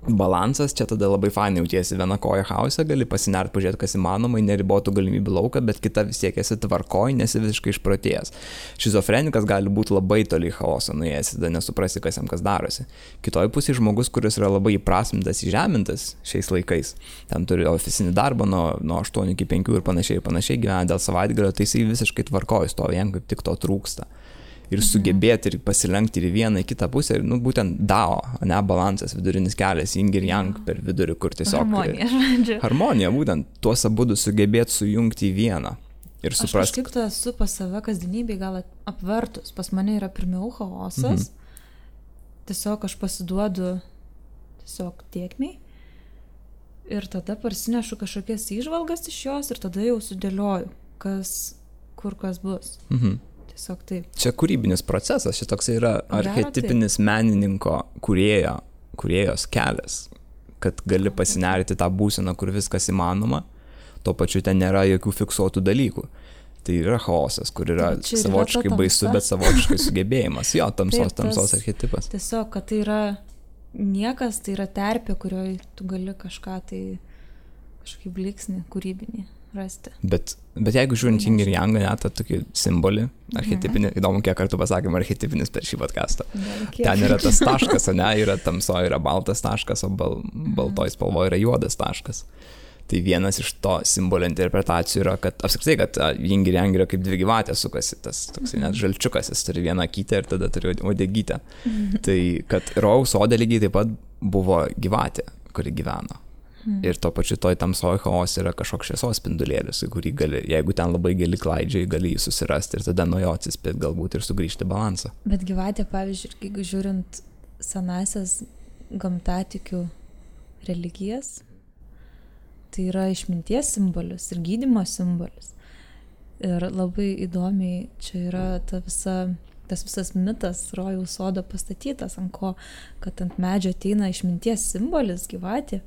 balansas, čia tada labai fainai jautiesi viena koja chaose, gali pasinert, pažiūrėti, kas įmanoma, neribotų galimybių lauką, bet kita vis tiek esi tvarkoj, nesi visiškai išprotėjęs. Šizofrenikas gali būti labai toli chaoso nuėjęs, tada nesuprasi, kas jam kas darosi. Kitoje pusėje žmogus, kuris yra labai įprasmintas, įžemintas šiais laikais, ten turi ofisinį darbą nuo 8 iki 5 ir panašiai gyvena dėl savaitgalio, tai jisai visiškai tvarkoj stovi, jam kaip tik to trūksta. Ir sugebėti ir pasilenkti ir į vieną, į kitą pusę, ir būtent Dao, ne balansas, vidurinis kelias, yin ir yang per vidurį, kur tiesiog... Harmonija, žodžiu. Harmonija, būtent, tuos abudu sugebėti sujungti į vieną. Ir suprast... Aš kažkaip to esu pas save kasdienybėj gal apvertus. Pas mane yra pirmiau chaosas. Tiesiog aš pasiduodu tiesiog tėkmei. Ir tada parsinešu kažkokias įžvalgas iš jos ir tada jau sudėlioju, kur kas bus. Taip. Čia kūrybinis procesas, šis toks yra archetipinis menininko kūrėjos kelias, kad gali pasinerti tą būseną, kur viskas įmanoma, tuo pačiu ten nėra jokių fiksuotų dalykų. Tai yra chaosas, kur yra savotiškai baisu, bet savotiškai sugebėjimas. Jo, tamsos archetipas. Tiesiog, kad tai yra niekas, tai yra terpė, kurioje tu gali kažką tai, kažkokį bliksnį kūrybinį rasti. Bet jeigu žiūrint yin ir yang, net tą tokį simbolį, archetipinį, įdomu, kiek kartų pasakėm archetipinis per šį podcastą. Ten yra tas taškas, ne, yra tamsoje yra baltas taškas, o baltoj spalvoje yra juodas taškas. Tai vienas iš to simbolio interpretacijų yra, kad apskritai, kad yin ir yang yra kaip dvi gyvatės sukasi, tas toksai net žalčiukas, jis turi vieną akytę ir tada turi uodegytę. Tai kad rojaus sode lygiai taip pat buvo gyvatė, kuri gyveno. Ir to pačiu toj tamsoj chaos yra kažkoks šviesos spindulėlis, kurį gali, jeigu ten labai gili klaidžiai, gali jį susirasti ir tada nuo jo atsispėti galbūt ir sugrįžti balansą. Bet gyvatė, pavyzdžiui, jeigu žiūrint senasias gamtatikių religijas, tai yra išminties simbolis ir gydymo simbolis. Ir labai įdomiai čia yra tas visas mitas rojaus sodo pastatytas, ant ko, kad ant medžio ateina išminties simbolis gyvatė.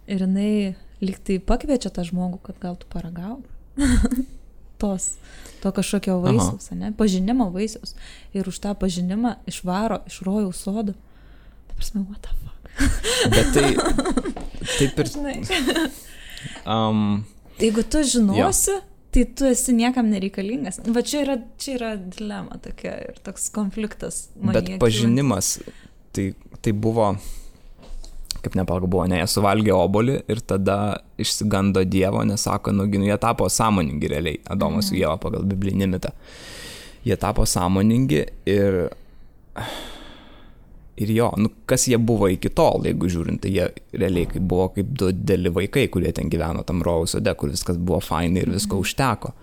Ir jinai lyg tai pakviečia tą žmogų, kad gal tu paragauk to kažkokio vaisiaus, ne? Pažinimo vaisiaus. Ir už tą pažinimą išvaro iš rojaus sodo. Prasme, what the fuck? Bet tai, taip ir... Žinai. Jeigu tu žinosi, tai tu esi niekam nereikalingas. Va čia yra dilema tokia ir toks konfliktas. Bet pažinimas, tai buvo, kaip nepalga buvo, ne, jie suvalgė obuolį ir tada išsigando Dievo, nes sako, jie tapo sąmoningi realiai, Adomas su Ieva pagal biblinį mitą. Jie tapo sąmoningi ir jo, kas jie buvo iki tol, jeigu žiūrint, tai jie realiai buvo kaip du dideli vaikai, kurie ten gyveno tam rojaus sode, kur viskas buvo fainai ir visko užteko,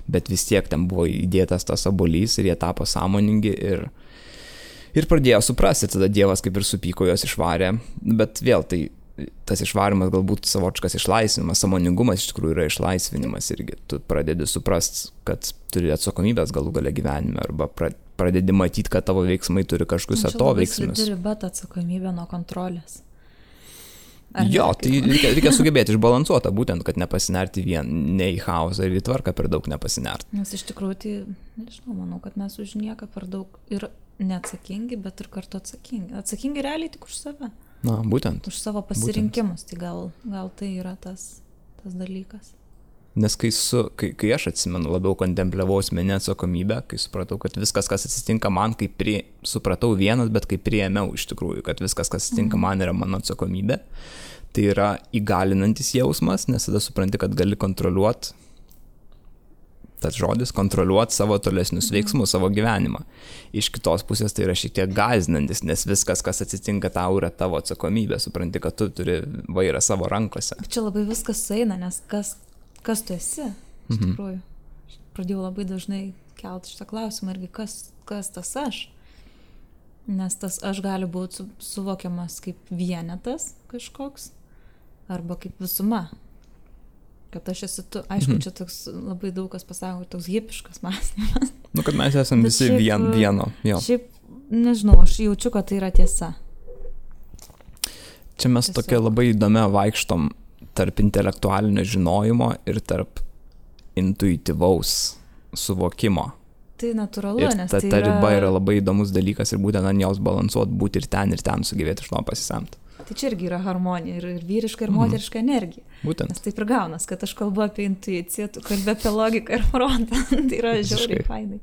bet vis tiek ten buvo įdėtas tas obuolys ir jie tapo sąmoningi ir pradėjo suprasti, tada Dievas kaip ir supyko, juos išvarė, bet vėl tai tas išvarimas galbūt savotiškas išlaisvinimas, sąmoningumas iš tikrųjų yra išlaisvinimas irgi, tu pradedi suprast, kad turi atsakomybės galų gale gyvenime arba pradedi matyti, kad tavo veiksmai turi kažkokius atoveiksmius. Čia labai slidi bet atsakomybė nuo kontrolės. Jo, tai reikia sugebėti išbalansuotą, būtent, kad nepasinerti ne į chaosą ir į tvarką per daug nepasinerti. Nes iš tikrųjų, tai, nežinau, manau, kad mes už nieką per daug ir neatsakingi, bet ir kartu atsakingi. Atsakingi realiai tik už save. Na, būtent. Už savo pasirinkimus, tai gal tai yra tas dalykas. Nes kai aš atsimenu, labiau kontempliavau asmeninę atsakomybę, kai supratau, kad viskas, kas atsitinka man, supratau vienas, bet kai priėmiau iš tikrųjų, kad viskas, kas atsitinka man, yra mano atsakomybė, tai yra įgalinantis jausmas, nes tada supranti, kad gali kontroliuoti, tas žodis, kontroliuoti savo tolesnius veiksmus, savo gyvenimą. Iš kitos pusės tai yra šiek tiek gąsdinantis, nes viskas, kas atsitinka tau, yra tavo atsakomybė, supranti, kad tu turi vairą savo rankose. Čia labai viskas sueina, nes kas tu esi, iš tikrųjų. Pradėjau labai dažnai kelti šitą klausimą irgi, kas tas aš. Nes tas aš gali būti suvokiamas kaip vienetas kažkoks, arba kaip visuma. Kad aš esu tu, aišku, čia toks labai daug kas pasako, toks hipiškas mąstymas. Kad mes esame visi vieno. Jo. Šiaip, nežinau, aš jaučiu, kad tai yra tiesa. Čia mes tokia labai įdomia vaikštom tarp intelektualinio žinojimo ir tarp intuityvaus suvokimo. Tai natūralu, nes ta riba yra labai įdomus dalykas ir būtent ant jos balansuoti, būti ir ten sugebėti iš to pasisemti. Tai čia irgi yra harmonija ir vyriška ir moteriška energija. Būtent. Nes taip ir gaunas, kad aš kalbu apie intuiciją, tu kalbi apie logiką ir protą. Tai yra žiauriai fainai.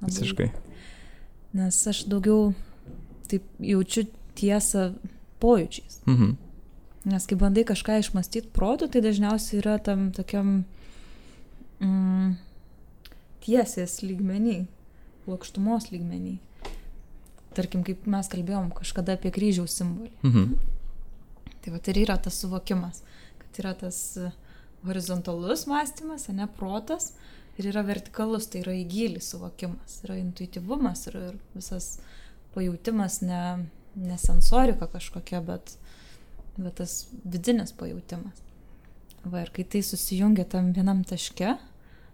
Visiškai. Nes aš daugiau taip jaučiu tiesą pojūčiais. Nes kai bandai kažką išmastyti protu, tai dažniausiai yra tam tokiam tiesės lygmenį, plokštumos lygmenį. Tarkim, kaip mes kalbėjom kažkada apie kryžiaus simbolį. Tai va, ir yra tas suvokimas, kad yra tas horizontalus mąstymas, ne protas, ir yra vertikalus, tai yra į gilį suvokimas, yra intuityvumas ir visas pajautimas, ne sensorika kažkokia, bet tas vidinis pajautimas. Va, ir kai tai susijungia tam vienam taške,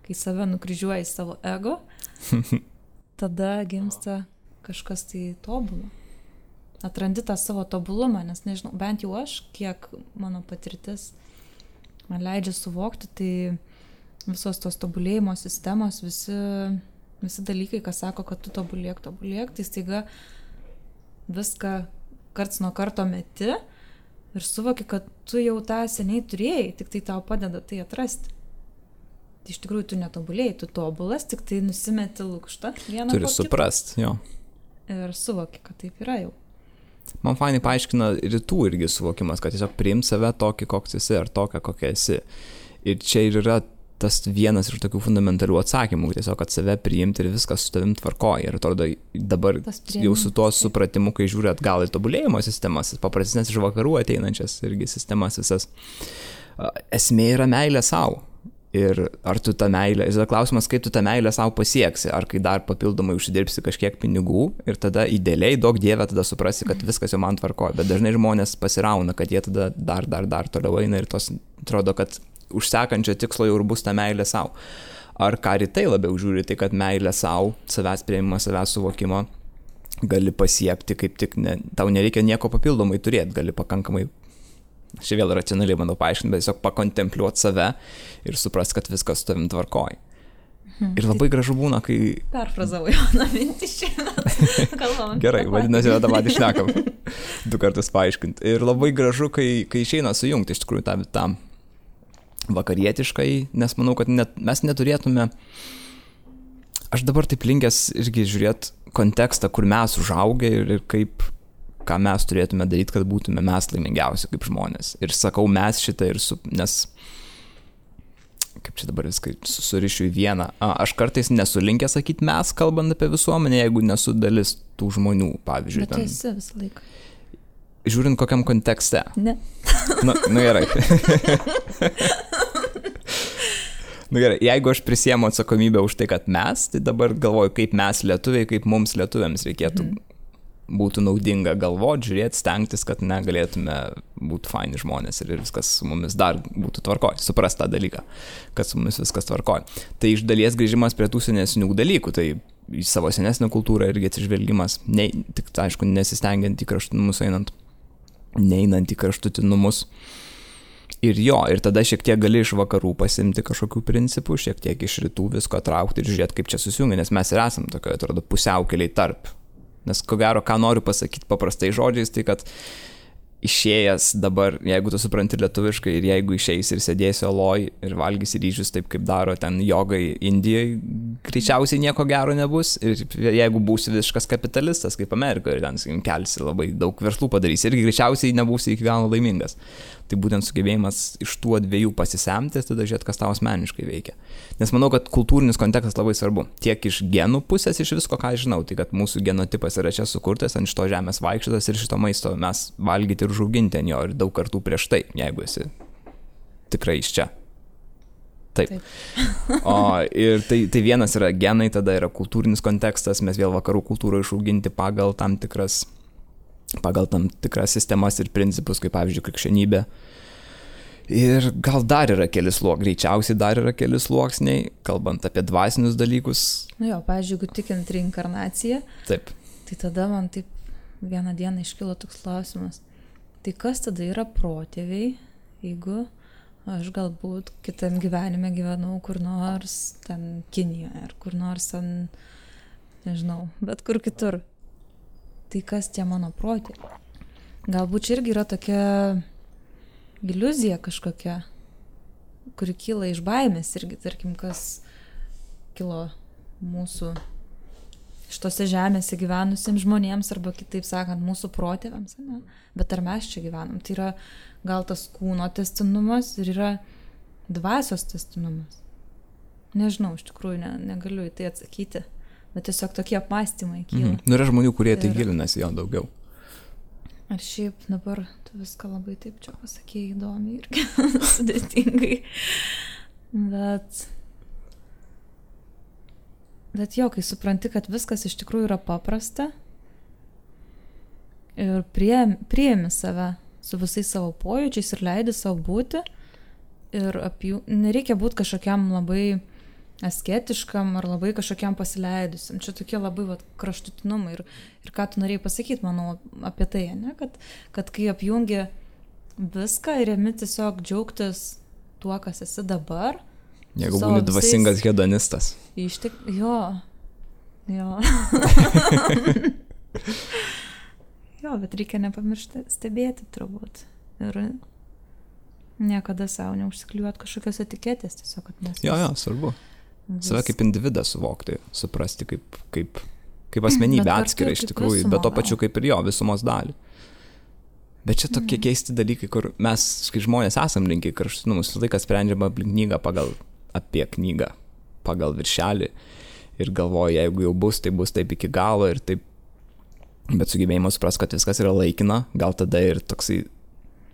kai save nukryžiuoja į savo ego, tada gimsta kažkas tai tobulo. Atrandi tą savo tobulumą, nes nežinau, bent jau aš, kiek mano patirtis man leidžia suvokti, tai visos tos tobulėjimo sistemos, visi dalykai, kas sako, kad tu tobulėk, tai staiga viską karts nuo karto meti ir suvoki, kad tu jau tą seniai turėjai, tik tai tau padeda tai atrasti. Tai iš tikrųjų tu netobulėjai, tu tobulas, tik tai nusimeti lukštą vieną po kito. Turi suprast, jo. Ir suvoki, kad taip yra jau. Man fainai paaiškina rytų irgi suvokimas, kad tiesiog priimt save tokį, koks esi, ar tokią, kokia esi. Ir čia ir yra tas vienas iš tokių fundamentalių atsakymų, tiesiog, kad save priimti ir viskas su tavim tvarkoja. Ir atrodo, dabar jau su tuo supratimu, kai žiūri atgal į tobulėjimo sistemas, paprastesnės iš vakarų ateinančias irgi sistemas visas, esmė yra meilė savo. Ir ar tu tą meilę, ir klausimas, kaip tu tą meilę savo pasieksi, ar kai dar papildomai užsidirbsi kažkiek pinigų ir tada idealiai, daug Dieve, tada suprasi, kad viskas jau man tvarkoja, bet dažnai žmonės pasirauna, kad jie tada dar toliau eina ir tos atrodo, kad už sekančio tikslo jau ir bus ta meilė savo. Ar ką rytai labiau žiūri, tai kad meilė savo, savęs priėmimo, savęs suvokimo gali pasiekti, kaip tik tau nereikia nieko papildomai turėti, gali pakankamai, aš vėl racionaliai bandau paaiškinti, bet tiesiog pakontempliuoti save ir suprast, kad viskas su tavim tvarkoja. Ir labai gražu būna, kai... Perfrazavau Joną mintį šiandien. Kalbam. Gerai, vadinasi, tą patį šnekam. 2 kartus paaiškinti. Ir labai gražu, kai išeina sujungti iš tikrųjų tą vakarietiškai, nes manau, kad mes neturėtume... Aš dabar taip linkęs irgi žiūrėti kontekstą, kur mes užaugę ir kaip, ką mes turėtume daryti, kad būtume mes laimingiausi kaip žmonės. Ir sakau mes šitą, nes... kaip čia dabar viską surišiu į vieną. Aš kartais nesu linkęs sakyti mes, kalbant apie visuomenę, jeigu nesu dalis tų žmonių, pavyzdžiui. Bet tu esi visą laiką. Žiūrint kokiam kontekste. Ne. Nu gerai. Gerai, jeigu aš prisiemu atsakomybę už tai, kad mes, tai dabar galvoju, kaip mes lietuviai, kaip mums lietuviams reikėtų būtų naudinga galvoti, žiūrėti, stengtis, kad negalėtume būti faini žmonės ir viskas su mumis dar būtų tvarkoj, suprast tą dalyką, kad su mumis viskas tvarkoj. Tai iš dalies grįžimas prie tų senesnių dalykų, tai į savo senesnę kultūrą irgi atsižvelgimas, tik aišku, nesistengiant į kraštutinumus neinant į kraštutinumus. Ir ir tada šiek tiek gali iš vakarų pasimti kažkokių principų, šiek tiek iš rytų visko traukti ir žiūrėti, kaip čia susijungia, nes mes ir esam tokioje, atrodo, pusiaukeliai tarp. Nes ko gero, ką noriu pasakyti paprastai žodžiais, tai kad išėjęs dabar, jeigu tu supranti lietuviškai ir jeigu išeis ir sėdėsi oloj ir valgysi ryžius taip, kaip daro ten jogai Indijoje, greičiausiai nieko gero nebus. Ir jeigu būsi visiškas kapitalistas kaip Amerikoje ir ten kelsi labai daug verslų padarysi, irgi greičiausiai nebūsi iki galo laimingas. Tai būtent sugebėjimas iš tų dviejų pasisemti, tada žiūrėti, kas tau asmeniškai veikia. Nes manau, kad kultūrinis kontekstas labai svarbu. Tiek iš genų pusės, iš visko, ką žinau, tai kad mūsų genotipas yra čia sukurtas, ant šito žemės vaikščiotas ir šito maisto mes valgyti ir užauginti ant jo ir daug kartų prieš tai, jeigu esi tikrai iš čia. Taip. Ir tai vienas yra genai, tada yra kultūrinis kontekstas, mes vėl vakarų kultūrą išauginti pagal tam tikras sistemas ir principus, kaip pavyzdžiui krikščionybė. Ir gal dar yra greičiausiai dar yra keli sluoksniai, kalbant apie dvasinius dalykus. Jo, pavyzdžiui, jeigu tikint reinkarnaciją, taip. Tai tada man taip vieną dieną iškilo toks klausimas. Tai kas tada yra protėviai, jeigu aš galbūt kitam gyvenime gyvenau kur nors ten Kinijoje, ar kur nors ten, nežinau, bet kur kitur. Tai kas tie mano protėviai? Galbūt čia irgi yra tokia iliuzija kažkokia, kuri kyla iš baimės irgi, tarkim, kas kilo mūsų šitose žemėse gyvenusiems žmonėms, arba kitaip sakant, mūsų protėviams, ne? Bet ar mes čia gyvenam? Tai yra gal tas kūno tęstinumas ir yra dvasios tęstinumas. Nežinau, iš tikrųjų negaliu į tai atsakyti. Bet tiesiog tokie apmąstymai kyla. Yra žmonių, kurie tai gilinasi jo daugiau. Ar šiaip dabar tu viską labai taip čia pasakėjai įdomiai ir sudėtingai. Bet jo, kai supranti, kad viskas iš tikrųjų yra paprasta ir priemi save su visais savo pojūčiais ir leidi savo būti ir nereikia būti kažkokiam labai asketiškam ar labai kažkokiam pasileidusiam. Čia tokie labai kraštutinumai. Ir ką tu norėjai pasakyti, manau, apie tai, ne? Kad kai apjungi viską ir ėmi tiesiog džiaugtis tuo, kas esi dabar. Jeigu būni dvasingas hedonistas. Jo. Jo, bet reikia nepamiršti stebėti turbūt. Ir niekada savo neužsikliuoti kažkokios etiketės, tiesiog, kad mes... Jo, svarbu. Save kaip individą suvokti, suprasti kaip asmenybę atskirą iš tikrųjų, bet to pačiu kaip ir jo visumos dalį. Bet čia tokie keisti dalykai, kur mes, kai žmonės esam linkę į kraštutinumus, laikas sprendžiama apie knygą, pagal viršelį ir galvoja, jeigu jau bus, tai bus taip iki galo ir taip, bet sugebėjimas suprast, kad viskas yra laikina, gal tada ir toksai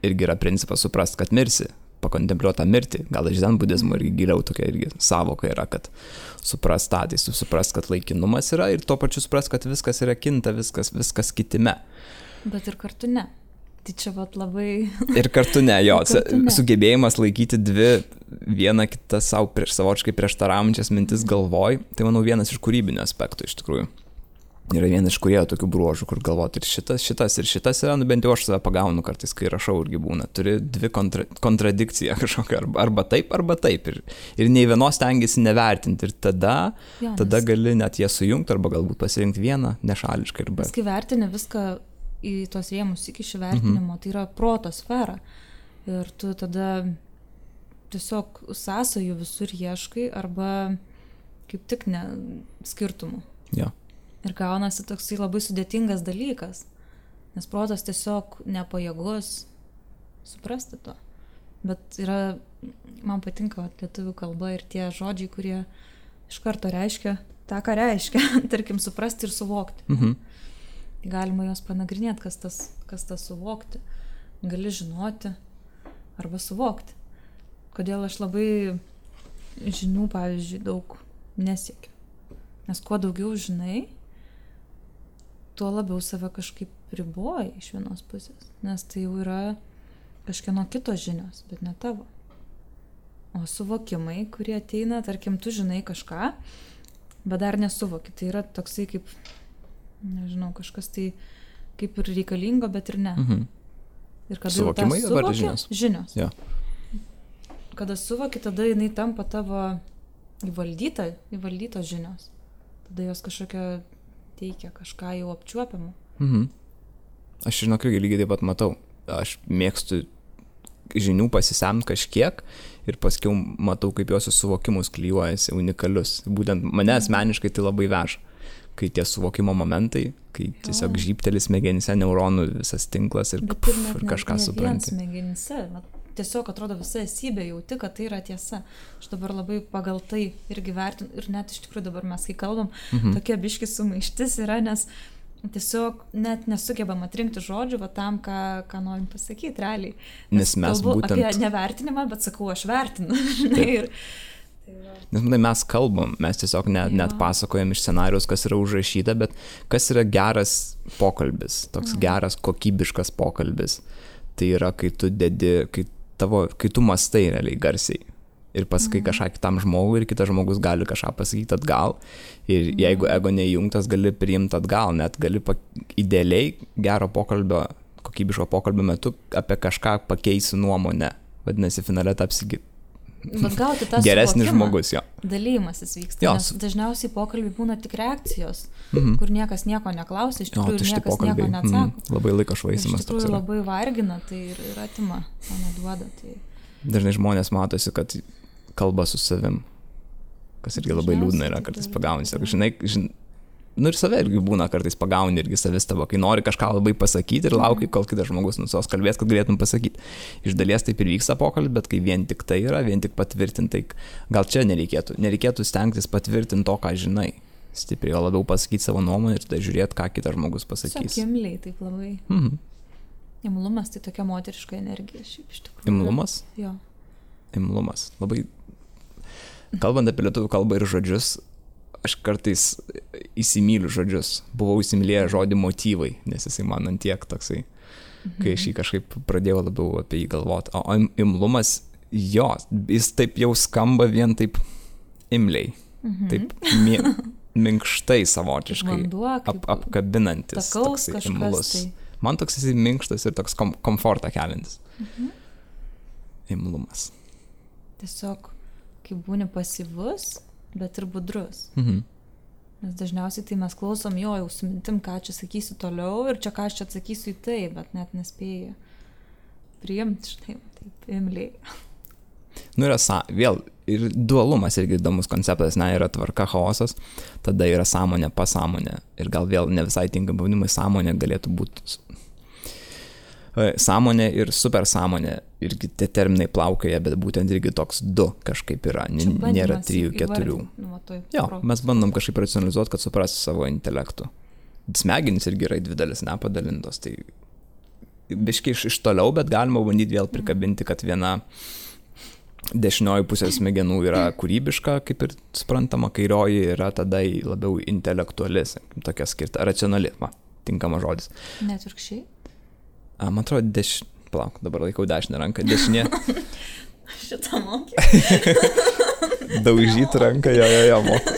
irgi yra principas suprast, kad mirsi. Pakontempliuoti tą mirtį, gal iš zen budizmo irgi giliau tokia irgi savoka yra, kad suprast kad laikinumas yra ir tuo pačiu suprast, kad viskas yra kinta, viskas kitime. Bet ir kartu ne. Tai čia labai... Ir kartu ne, jo. Sugebėjimas laikyti vieną kitą savočiai prieštaraujančias mintis galvoj, tai manau vienas iš kūrybinių aspektų iš tikrųjų. yra vienas iš kūrėjų tokių bruožų, kur galvoti ir šitas yra, nu bent jau aš save pagaunu kartais, kai rašau irgi būna. Turi dvi kontradikciją kažkokią, arba taip. Ir nei vienos stengiasi nevertinti. Ir tada gali net ją sujungti, arba galbūt pasirinkti vieną nešališkai. Nes kai vertini viską į tos rėmus iki vertinimo, tai yra proto sfera. Ir tu tada tiesiog sąsajų visur ieškai, arba kaip tik ne skirtumų. Jo. Ir gaunasi toksai labai sudėtingas dalykas, nes protas tiesiog nepajėgus suprasti to. Bet man patinka lietuvių kalba ir tie žodžiai, kurie iš karto reiškia tą, ką reiškia, tarkim, suprasti ir suvokti. Galima juos panagrinėti, kas tas suvokti. Gali žinoti arba suvokti. Kodėl aš labai žinių, pavyzdžiui, daug nesiekiu. Nes kuo daugiau žinai, tuo labiau save kažkaip riboji iš vienos pusės, nes tai jau yra kažkieno kito žinios, bet ne tavo. O suvokimai, kurie ateina, tarkim, tu žinai kažką, bet dar nesuvoki. Tai yra toksai kaip, nežinau, kažkas tai kaip ir reikalingo, bet ir ne. Ir kada suvokimai jau tą žinios? Žinios. Ja. Kada suvoki, tada jinai tampa tavo įvaldytos žinios. Tada jos kažkokia teikia kažką jau apčiuopiamą. Aš žinok, lygiai taip pat matau. Aš mėgstu žinių pasisemti kažkiek ir paskiau matau, kaip jos suvokimus klijuojasi unikalius. Būtent mane asmeniškai tai labai veža. Kai tie suvokimo momentai, kai tiesiog žybtelis smegenyse, neuronų visas tinklas ir kažką supranti. Smegenyse, tiesiog atrodo visa esybė jauti, kad tai yra tiesa. Aš dabar labai pagal tai irgi vertinu ir net iš tikrųjų dabar mes, kai kalbam, tokia biški sumaištis yra, nes tiesiog net nesugebam atrinkti žodžių tam, ką norim pasakyti realiai. Nes mes būtent... apie nevertinimą, bet sakau, aš vertinu. Nes mes kalbam, mes tiesiog net pasakojam iš scenarijos, kas yra užrašyta, bet kas yra geras pokalbis, toks geras kokybiškas pokalbis. Tai yra, kai tu kai tu mastai realiai garsiai ir pasakai kažką kitam žmogui ir kitas žmogus gali kažką pasakyti atgal ir jeigu ego neįjungtas, gali priimti atgal, net gali idealiai gero pokalbio, kokybiško pokalbio metu apie kažką pakeisi nuomonę, vadinasi finale tapsi geresnis žmogus, jo. Dalymasis vyksta, nes dažniausiai pokalbiai būna tik reakcijos, kur niekas nieko neklausia, iš tikrųjų niekas nieko neatsako. Labai laiko švaistymas. Iš tikrųjų labai vargina, tai ir atima, o neduoda. Tai... Dažnai žmonės matosi, kad kalba su savim, kas irgi labai liūdna yra, kartais pagauni. Žinai, ir save irgi būna kartais pagauni irgi savistaba, kai nori kažką labai pasakyti ir lauki, kol kitas žmogus nusos kalbės, kad galėtum pasakyti. Iš dalies taip ir vyksta pokalbis, bet kai vien tik tai yra, vien tik patvirtintai, gal čia nereikėtų stengtis patvirtinti to, ką žinai. Stipriai, o labiau pasakyti savo nuomonę ir tada žiūrėti, ką kitas žmogus pasakys. Imliai, taip labai. Imlumas tai tokia moteriška energija, šiaip iš tikrųjų. Imlumas? Jo. Imlumas. Labai, kalbant apie lietuvių kalbą ir žodžius, aš kartais įsimyliu žodžius. Buvau įsimylėjęs žodį motyvai, nes jisai man antiek toksai, kai aš jį kažkaip pradėjau labiau apie jį galvoti. O imlumas, jo, jis taip jau skamba vien taip imliai, taip minkštai savotiškai, vanduo, apkabinantis, toksai imlus. Tai. Man toks jisai minkštas ir toks komfortą keliantis. Imlumas. Tiesiog, kai būni pasyvus, bet ir budrus. Nes dažniausiai tai mes klausom jau su mintim, ką čia sakysiu toliau ir čia ką aš čia atsakysiu į tai, bet net nespėju priimti, štai, taip, imliai. Yra vėl ir dualumas irgi įdomus konceptas, yra tvarka, chaosas, tada yra sąmonė, pasąmonė ir gal vėl ne visai tinkami pavadinimai, sąmonė galėtų būti sąmonė ir supersąmonė, irgi tie terminai plaukioja, bet būtent irgi toks du kažkaip yra, nėra 3-4. Jo, mes bandom kažkaip racionalizuoti, kad suprasti savo intelektų. Smegenys irgi yra į dvi dalis nepadalintos, tai biškai iš toliau, bet galima bandyti vėl prikabinti, kad viena dešinioji pusė smegenų yra kūrybiška, kaip ir suprantama, kairioji yra tada labiau intelektuali, tokia skirta, racionali, tinkamas žodis. Net virkščiai? Man atrodo, palauk, dabar laikau dešinę ranką, dešinė. Šitą mokė. Daužyti ranką, jo, moku.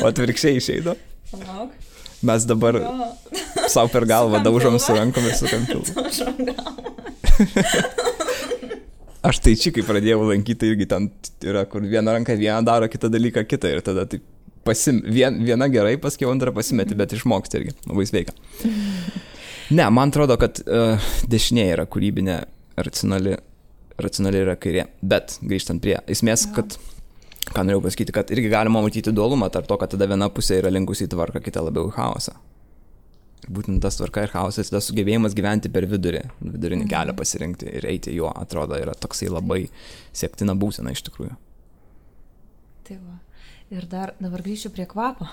O atvirkščiai išeido? Mes dabar savo per galvą daužom su rankom ir sukam pilvą. Aš tai čia, kai pradėjau lankyti, irgi ten yra, kur viena ranka vieną daro, kitą dalyką kitą ir tada taip viena gerai, paskui antrą pasimeti, bet išmoksti irgi, labai sveika. Ne, man atrodo, kad dešinė yra kūrybinė, racionali yra kairė, bet grįžtant prie esmės, kad ką norėjau pasakyti, kad irgi galima matyti dualumą tarp to, kad tada viena pusė yra linkusi į tvarką, kita labiau į chaosą. Būtent tas tvarka ir chaosas, tas sugebėjimas gyventi per vidurinį kelią pasirinkti ir eiti juo, atrodo, yra toksai labai siektina būsena iš tikrųjų. Tai va. Ir dabar grįšiu prie kvapo.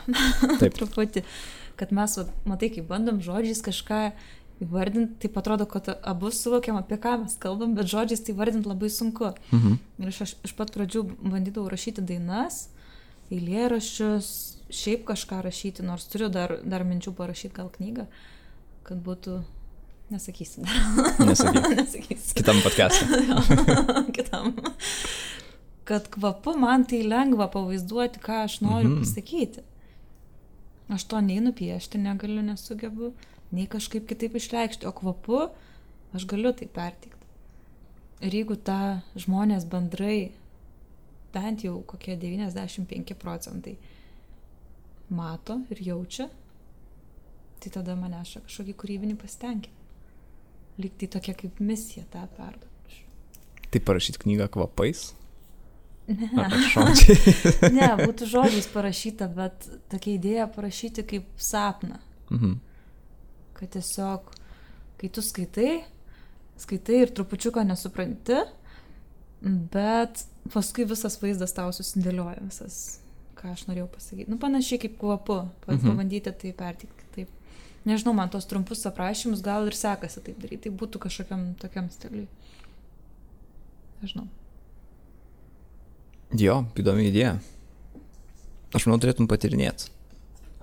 Taip. Truputį, kad mes, matai, kai bandom žodžiais kažką įvardinti, taip atrodo, kad abu suvokiam, apie ką mes kalbam, bet žodžiais tai vardinti labai sunku. Ir aš iš pat pradžių bandydavau rašyti dainas, eilėraščius, šiaip kažką rašyti, nors turiu dar minčių parašyti gal knygą, kad būtų, nesakysiu. Nesakysiu. Kitam podcast'e. Kitam. Kad kvapu man tai lengva pavaizduoti, ką aš noriu pasakyti. Aš to nei nupiešti negaliu, nesugebu, nei kažkaip kitaip išreikšti, o kvapu aš galiu tai perteikti. Ir jeigu tą žmonės bendrai, bent jau kokie 95% mato ir jaučia, tai tada maneša kažkokį kūrybinį pasitenkinimą. Lyg tai tokia kaip misija tą perduoti. Tai parašyti knygą kvapais? Ne. Ne, būtų žodžiais parašyta, bet tokia idėja parašyti kaip sapną. Kad tiesiog, kai tu skaitai ir trupučiuką nesupranti, bet paskui visas vaizdas tau susidėlioja, visas, ką aš norėjau pasakyti. Panašiai kaip kvapu, pabandyti tai perteikti taip. Nežinau, man tos trumpus aprašymus gal ir sekasi taip daryti, tai būtų kažkokiam tokiam stiliui. Nežinau. Jo, įdomi idėja. Aš manau, turėtum patirinėti.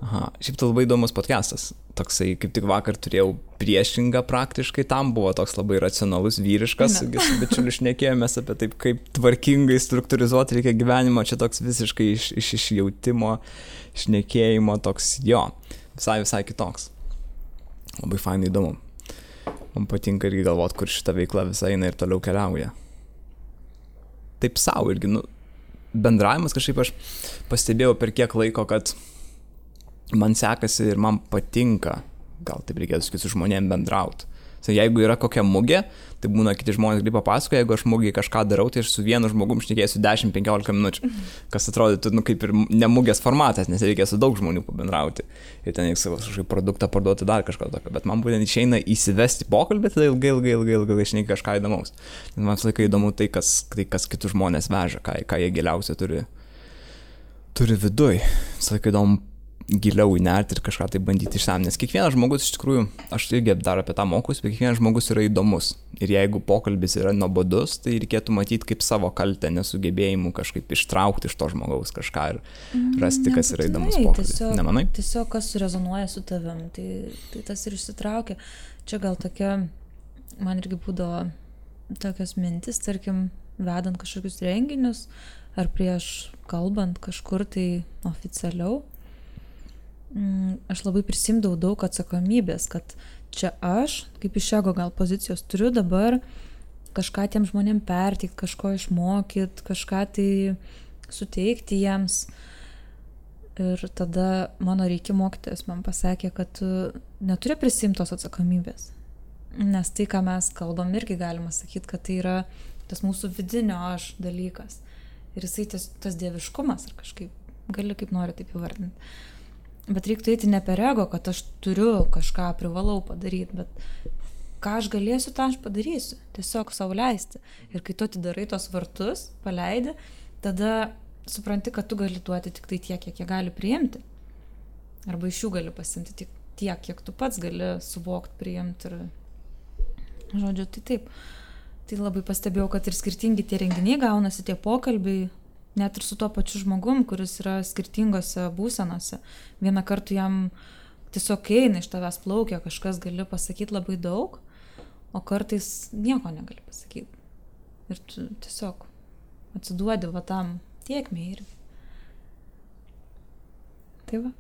Aha, šiaip tai labai įdomus podcastas. Toksai, kaip tik vakar turėjau priešingą praktiškai, tam buvo toks labai racionalus, vyriškas, su bičiuliu šnekėjomės apie taip, kaip tvarkingai struktūrizuoti reikia gyvenimo, čia toks visiškai iš išjautimo, šnekėjimo, toks jo, visai kitoks. Labai fainai įdomu. Man patinka irgi galvoti, kur šita veikla visai eina ir toliau keliauja. Taip savo irgi, bendravimas kažkaip aš pastebėjau per kiek laiko, kad man sekasi ir man patinka, gal taip reikėtų sakyti, su žmonėm bendrauti. Jeigu yra kokia mugė, tai būna kiti žmonės gali papasakoja, jeigu aš mugėje kažką darau, tai aš su vienu žmogum šnekėsiu 10-15 minučių, kas atrodytų kaip ir ne mugės formatas, nes reikia su daug žmonių pabendrauti ir ten reikia savo kažkokį produktą parduoti dar kažką tokio, bet man būtent išeina įsivesti pokalbį, tada ilgai šneki kažką įdomaus. Nes man visą laiką įdomu tai, kas kitus žmonės veža, ką jie giliausia turi viduj. Visą laiką įdomu giliau įnerti ir kažką tai bandyti išsam, nes kiekvienas žmogus iš tikrųjų, aš irgi dar apie tą mokusi, bet kiekvienas žmogus yra įdomus ir jeigu pokalbis yra nuobodus, tai reikėtų matyti kaip savo kaltę, nesugebėjimu kažkaip ištraukti iš to žmogaus kažką ir rasti, kas yra įdomus pokalbis. Nemanai? Tiesiog kas surezonuoja su tavim, tai tas ir išsitraukia. Čia gal tokia, man irgi būdavo tokios mintis, tarkim, vedant kažkokius renginius ar prieš kalbant kažkur tai oficialiau. Aš labai prisimdavau daug atsakomybės, kad čia aš, kaip iš ego gal pozicijos, turiu dabar kažką tiem žmonėm perteikti, kažko išmokyti, kažką tai suteikti jiems. Ir tada mano reikia mokytojas man pasakė, kad tu neturi prisimti tos atsakomybės. Nes tai, ką mes kalbam, irgi galima sakyti, kad tai yra tas mūsų vidinio aš dalykas. Ir jisai tas dieviškumas, ar kažkaip, gali kaip nori taip įvardinti. Bet reiktų eiti ne per ego, kad aš turiu kažką, privalau padaryti, bet ką aš galėsiu, tą aš padarysiu. Tiesiog savo leisti. Ir kai tu atidarai tos vartus, paleidi, tada supranti, kad tu gali duoti tik tai tiek, kiek jie gali priimti. Arba iš jų gali pasimti tik tiek, kiek tu pats gali suvokti, priimti. Ir žodžiu, tai taip. Tai labai pastebėjau, kad ir skirtingi tie renginiai gaunasi, tie pokalbiai, net ir su tuo pačiu žmogum, kuris yra skirtingose būsenose. Vieną kartą jam tiesiog eina iš tavęs plaukia, kažkas gali pasakyti labai daug, o kartais nieko negali pasakyti. Ir tu tiesiog atsiduodi va tam tiekmei irgi. Tai va.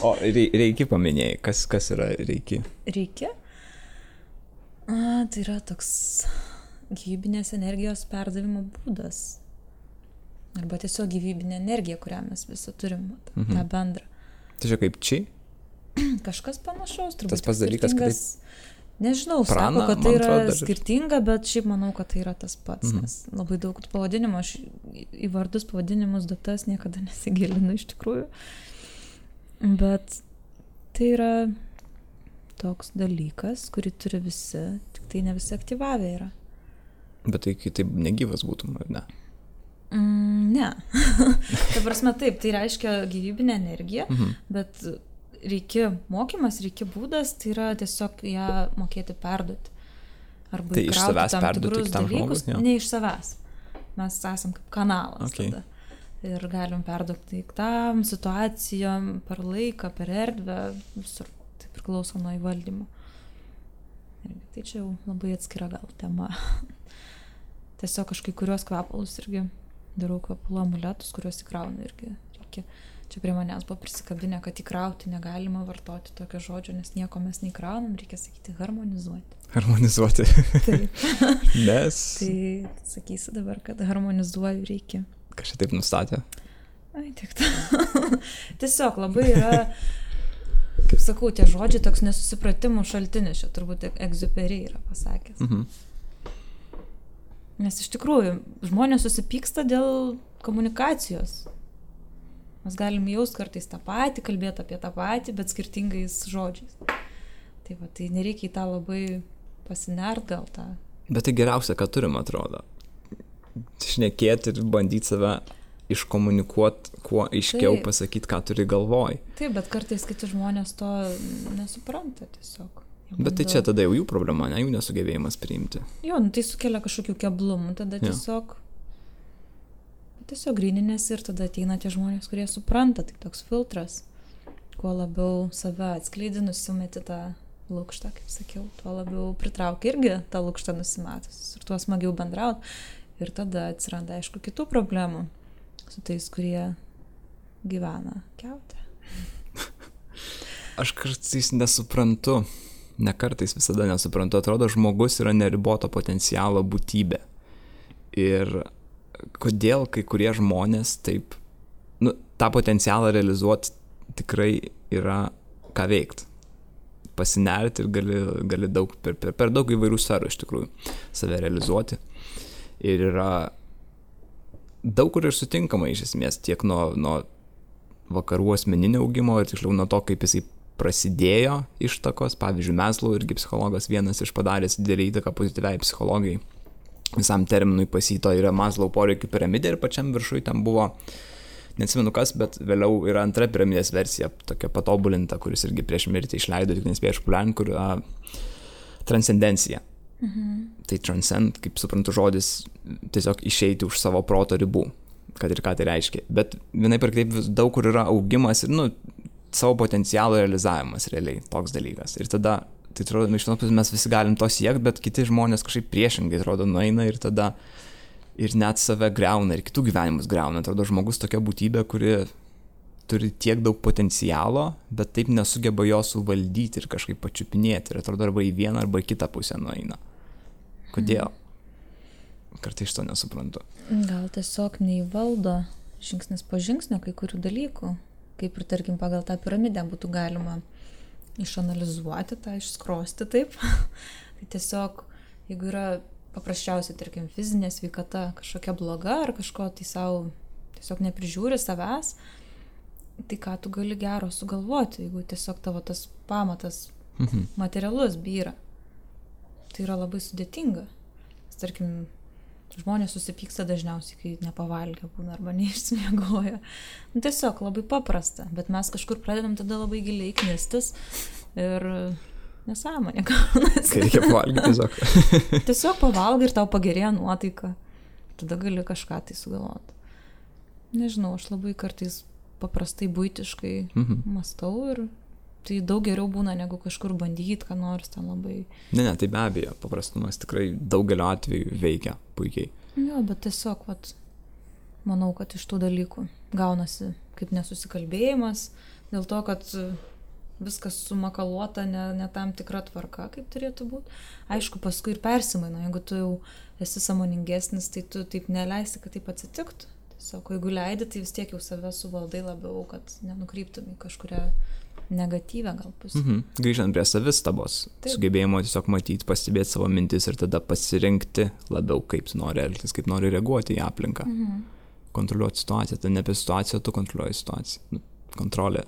O reiki paminėjai, kas yra reiki? Reiki? Tai yra toks gyvybinės energijos perdavimo būdas. Arba tiesiog gyvybinė energija, kurią mes visi turim, tą bendrą. Tai čia kaip či? Kažkas panašaus, turbūt. Tas pats dalykas, kaip nežinau, prana, sako, kad tai yra atrodo, skirtinga, bet šiaip manau, kad tai yra tas pats, nes labai daug pavadinimų, aš į vardus, pavadinimus, datas niekada nesigilinu iš tikrųjų. Bet tai yra toks dalykas, kurį turi visi, tik tai ne visi aktyvavę yra. Bet tai kitaip negyvas būtum, ar ne? Ne. Ta prasme taip, tai reiškia gyvybinę energiją, bet reikia mokymas, reikia būdas, tai yra tiesiog ją mokėti perduoti. Arba tai iš savęs perduoti kitam žmogui? Ne iš savęs. Mes esam kaip kanalas tada. Ir galim perduoti daiktam, situacijom, per laiką, per erdvę, visur. Tai priklauso nuo įvaldymo. Tai čia jau labai atskira gal tema. Tiesiog aš kai kurios kvepalus irgi darau kvepalų amuletus, kuriuos įkraunu irgi reikia. Čia prie manęs buvo prisikabinę, kad įkrauti negalima vartoti tokio žodžio, nes nieko mes neįkraunam, reikia sakyti harmonizuoti. Harmonizuoti. Taip. Nes. Tai sakysi dabar, kad harmonizuoju reikia. Kažkaip taip nustatė? Ai, tik ta. Tiesiog labai yra, kaip sakau, tie žodžiai toks nesusipratimų šaltinis, čia turbūt Egziuperi yra pasakęs. Nes iš tikrųjų, žmonės susipyksta dėl komunikacijos. Mes galim jaust kartais tą patį, kalbėti apie tą patį, bet skirtingais žodžiais. Tai va, tai nereikia į tą labai pasinert gal tą. Bet tai geriausia, ką turim, atrodo. Šnekėti ir bandyti save iškomunikuoti, kuo aiškiau pasakyti, ką turi galvoj. Taip, bet kartais kiti žmonės to nesupranta tiesiog. Bet tai čia tada jau jų problema, ne jų nesugebėjimas priimti. Jo, tai sukelia kažkokių keblumų, tada tiesiog gryninės ir tada ateina tie žmonės, kurie supranta, tai toks filtras. Kuo labiau save atskleidi, nusimeti tą lukštą, kaip sakiau, tuo labiau pritraukia irgi tą lukštą nusimetus ir tuo smagiau bendraut. Ir tada atsiranda, aišku, kitų problemų su tais, kurie gyvena kiaute. Aš kartais nesuprantu. Ne kartais, visada nesuprantu, atrodo, žmogus yra neriboto potencialo būtybė. Ir kodėl kai kurie žmonės taip, tą potencialą realizuoti tikrai yra ką veikti. Pasinerti ir gali daug, per daug įvairių sferų iš tikrųjų save realizuoti. Ir yra daug kur ir sutinkama iš esmės, tiek nuo vakarų asmeninio augimo ir tiksliau nuo to, kaip jisai prasidėjo ištakos, pavyzdžiui, Maslow irgi psichologas vienas iš padaręs didelį įtaką pozityviai psichologijai. Visam terminui pasito yra Maslow poreikių piramidė ir pačiam viršui ten buvo, neatsimenu kas, bet vėliau yra antra piramidės versija, tokia patobulinta, kuris irgi prieš mirtį išleido, tik nespėjo išpopuliarinti, kur transcendencija. Tai transcend, kaip suprantu žodis, tiesiog išeiti už savo proto ribų, kad ir ką tai reiškia. Bet vienaip ir kitaip daug kur yra augimas ir, savo potencialo realizavimas realiai, toks dalykas. Ir tada, tai atrodo, iš vienos pusės mes visi galim to siekti, bet kiti žmonės kažkaip priešingai, atrodo, nueina ir tada ir net save greuna, ir kitų gyvenimus greuna. Atrodo, žmogus tokia būtybė, kuri turi tiek daug potencialo, bet taip nesugeba jo suvaldyti ir kažkaip pačiupinėti. Ir atrodo, arba į vieną, arba į kitą pusę nueina. Kodėl? Kartais šito nesuprantu. Gal tiesiog neįvaldo žingsnis po žingsnio kai kurių dalykų. Kaip ir, tarkim, pagal tą piramidę būtų galima išanalizuoti, tą išskrosti taip. Tai tiesiog, jeigu yra paprasčiausiai, tarkim, fizinė sveikata kažkokia bloga ar kažko tai savo tiesiog neprižiūri savęs, tai ką tu gali gero sugalvoti, jeigu tiesiog tavo tas pamatas materialus byra. Tai yra labai sudėtinga. Tarkim, žmonės susipyksta dažniausiai, kai nepavalgę būna arba neišsimiegoja. Tiesiog labai paprasta, bet mes kažkur pradedam tada labai giliai knistis ir nesąmonė gaunasi. Kai reikia pavalgyti tiesiog. Tiesiog pavalgai ir tau pagerėja nuotaika. Tada gali kažką tai sugalvoti. Nežinau, aš labai kartais paprastai buitiškai mąstau ir tai daug geriau būna, negu kažkur bandyti, ką nors ten labai. Ne, tai be abejo, paprastumas tikrai daugelio atveju veikia puikiai. Jo, bet tiesiog, manau, kad iš tų dalykų gaunasi kaip nesusikalbėjimas, dėl to, kad viskas sumakaluota ne tam tikra tvarka, kaip turėtų būti. Aišku, paskui ir persimaino, jeigu tu jau esi sąmoningesnis, tai tu taip neleisi, kad taip atsitiktų. Tiesiog, jeigu leidi, tai vis tiek jau save suvaldai labiau, kad nenukryptum į kažkurią negatyvę gal pusę. Grįžtant prie savistabos, sugebėjimo tiesiog matyti, pastebėti savo mintis ir tada pasirinkti labiau, kaip tu nori elgtis, kaip nori reaguoti į aplinką. Kontroliuoti situaciją, tai ne apie situaciją, tu kontroliuoji situaciją. Kontrolė.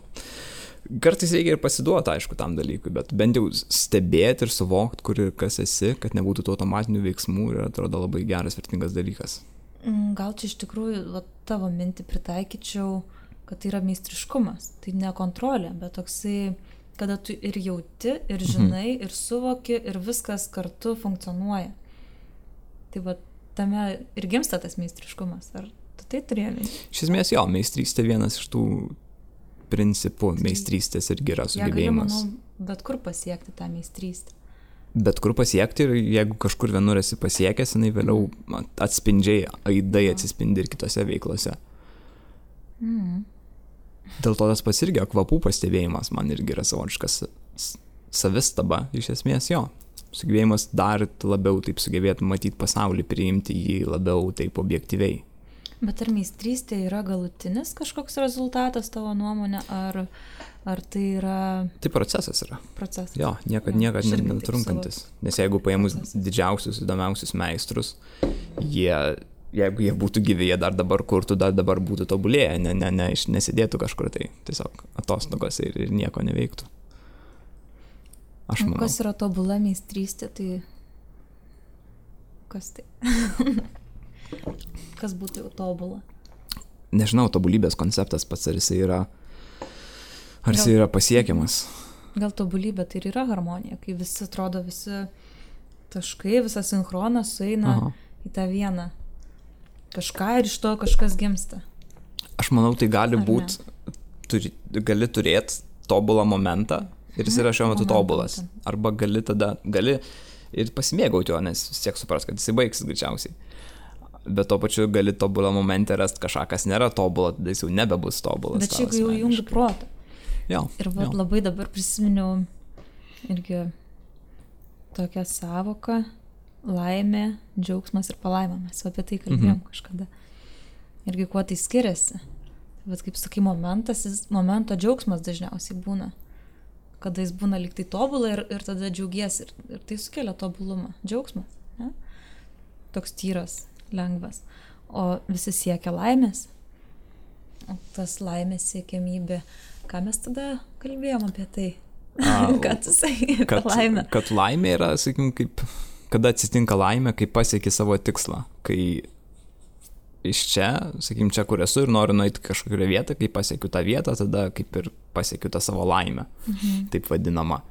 Kartais reikia ir pasiduoti, aišku, tam dalykui, bet bent jau stebėti ir suvokti, kur ir kas esi, kad nebūtų tų automatinių veiksmų ir atrodo labai geras, vertingas dalykas. Gal čia iš tikrųjų tavo mintį pritaikyčiau, kad tai yra meistriškumas. Tai ne kontrolė, bet toksai, kada tu ir jauti, ir žinai, ir suvoki, ir viskas kartu funkcionuoja. Tai va, tame ir gimsta tas meistriškumas. Ar tu tai turėjai? Iš esmės, jo, meistrystė vienas iš tų principų. Meistrystės irgi yra sugebėjimas. Ja, manau, bet kur pasiekti tą meistrystę. Bet kur pasiekti ir jeigu kažkur vienur esi pasiekęs, jinai vėliau atspindžiai, aidai atsispindi ir kitose veiklose. Dėl to tas pats irgi kvapų pastebėjimas man irgi yra savotiškas savistaba, iš esmės jo. Sugebėjimas dar labiau taip sugebėti matyti pasaulį, priimti jį labiau taip objektyviai. Bet ar meistrystė yra galutinis kažkoks rezultatas tavo nuomonė, ar tai yra... Tai procesas yra. Procesas. Jo, niekad netrunkantis. Nes jeigu paėmus didžiausius, įdomiausius meistrus, jeigu jie būtų gyvi, jie dar dabar kurtų, dar dabar būtų tobulėję, nesidėtų kažkur, tai tiesiog atostogose ir nieko neveiktų. Aš manau. Kas yra tobula meistrystė, tai kas tai? Kas būtų jau tobula? Nežinau, tobulybės konceptas pats, ar jisai yra pasiekiamas. Gal tobulybė tai ir yra harmonija, kai visi atrodo, visi taškai, visas sinchronas sueina į tą vieną kažką ir iš to kažkas gimsta. Aš manau, tai gali būti, gali turėti tobulą momentą ir jis yra šiuo metu tobulas. Arba gali ir pasimėgauti jo, nes vis tiek supras, kad jisai baigsis greičiausiai. Bet to pačiu gali tobulą momentą rasti kažką, kas nėra tobulą, tada jis jau nebebus tobulas. Bet čia jau jungi protą. Jo. Ir labai dabar prisiminiau irgi tokią savoką laimė, džiaugsmas ir palaima. Mes apie tai kalbėjom kažkada. Irgi kuo tai skiriasi. Bet kaip sakai, momento džiaugsmas dažniausiai būna. Kada jis būna lyg tai tobulą ir tada džiaugiesi. Ir tai sukelia tobulumą. Džiaugsmas. Ne? Toks tyras, lengvas. O visi siekia laimės. O tas laimės siekiamybė. Ką mes tada kalbėjom apie tai? Ką tu sakai apie laimę? Kad laimė yra, sakykim, kada atsitinka laimė, kai pasieki savo tikslą. Kai iš čia, sakykim, čia, kur esu ir noriu nueiti kažkokią vietą, kai pasiekiu tą vietą, tada kaip ir pasiekiu tą savo laimę, taip vadinama.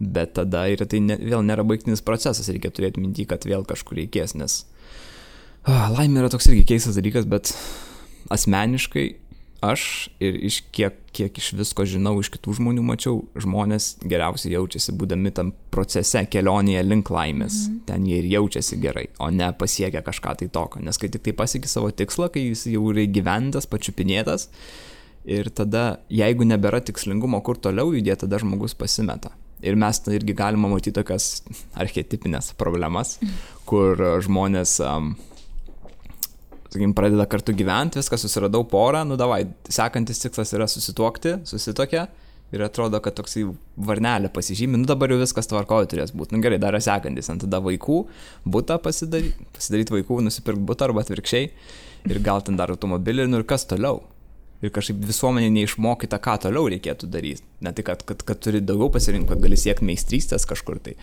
Bet tada ir tai vėl nėra baigtinis procesas, reikia turėti mintį, kad vėl kažkur reikės, nes laimė yra toks irgi keistas dalykas, bet asmeniškai aš ir iš kiek iš visko žinau, iš kitų žmonių mačiau, žmonės geriausiai jaučiasi būdami tam procese, kelionėje link laimės. Ten jie ir jaučiasi gerai, o ne pasiekia kažką tai tokio. Nes kai tik tai pasieki savo tikslą, kai jis jau yra įgyventas, pačiupinėtas, ir tada, jeigu nebėra tikslingumo, kur toliau judėti, tada žmogus pasimeta. Ir mes irgi galime matyti tokias archetipinės problemas, kur žmonės... sakykim, pradeda kartu gyventi, viską susiradau porą, davai, sekantis tikslas yra susituokti, susitokia ir atrodo, kad toksai varnelė pasižymi, dabar jau viskas tvarkoje turės būti. Gerai, dar yra sekantis, tada vaikų, butą pasidaryti vaikų, nusipirkti butą arba atvirkščiai ir gal ten dar automobilį ir kas toliau. Ir kažkaip visuomenė neišmokyta, ką toliau reikėtų daryti. Ne tai, kad turi daugiau pasirinkti, kad gali siekti meistrystės kažkur tai.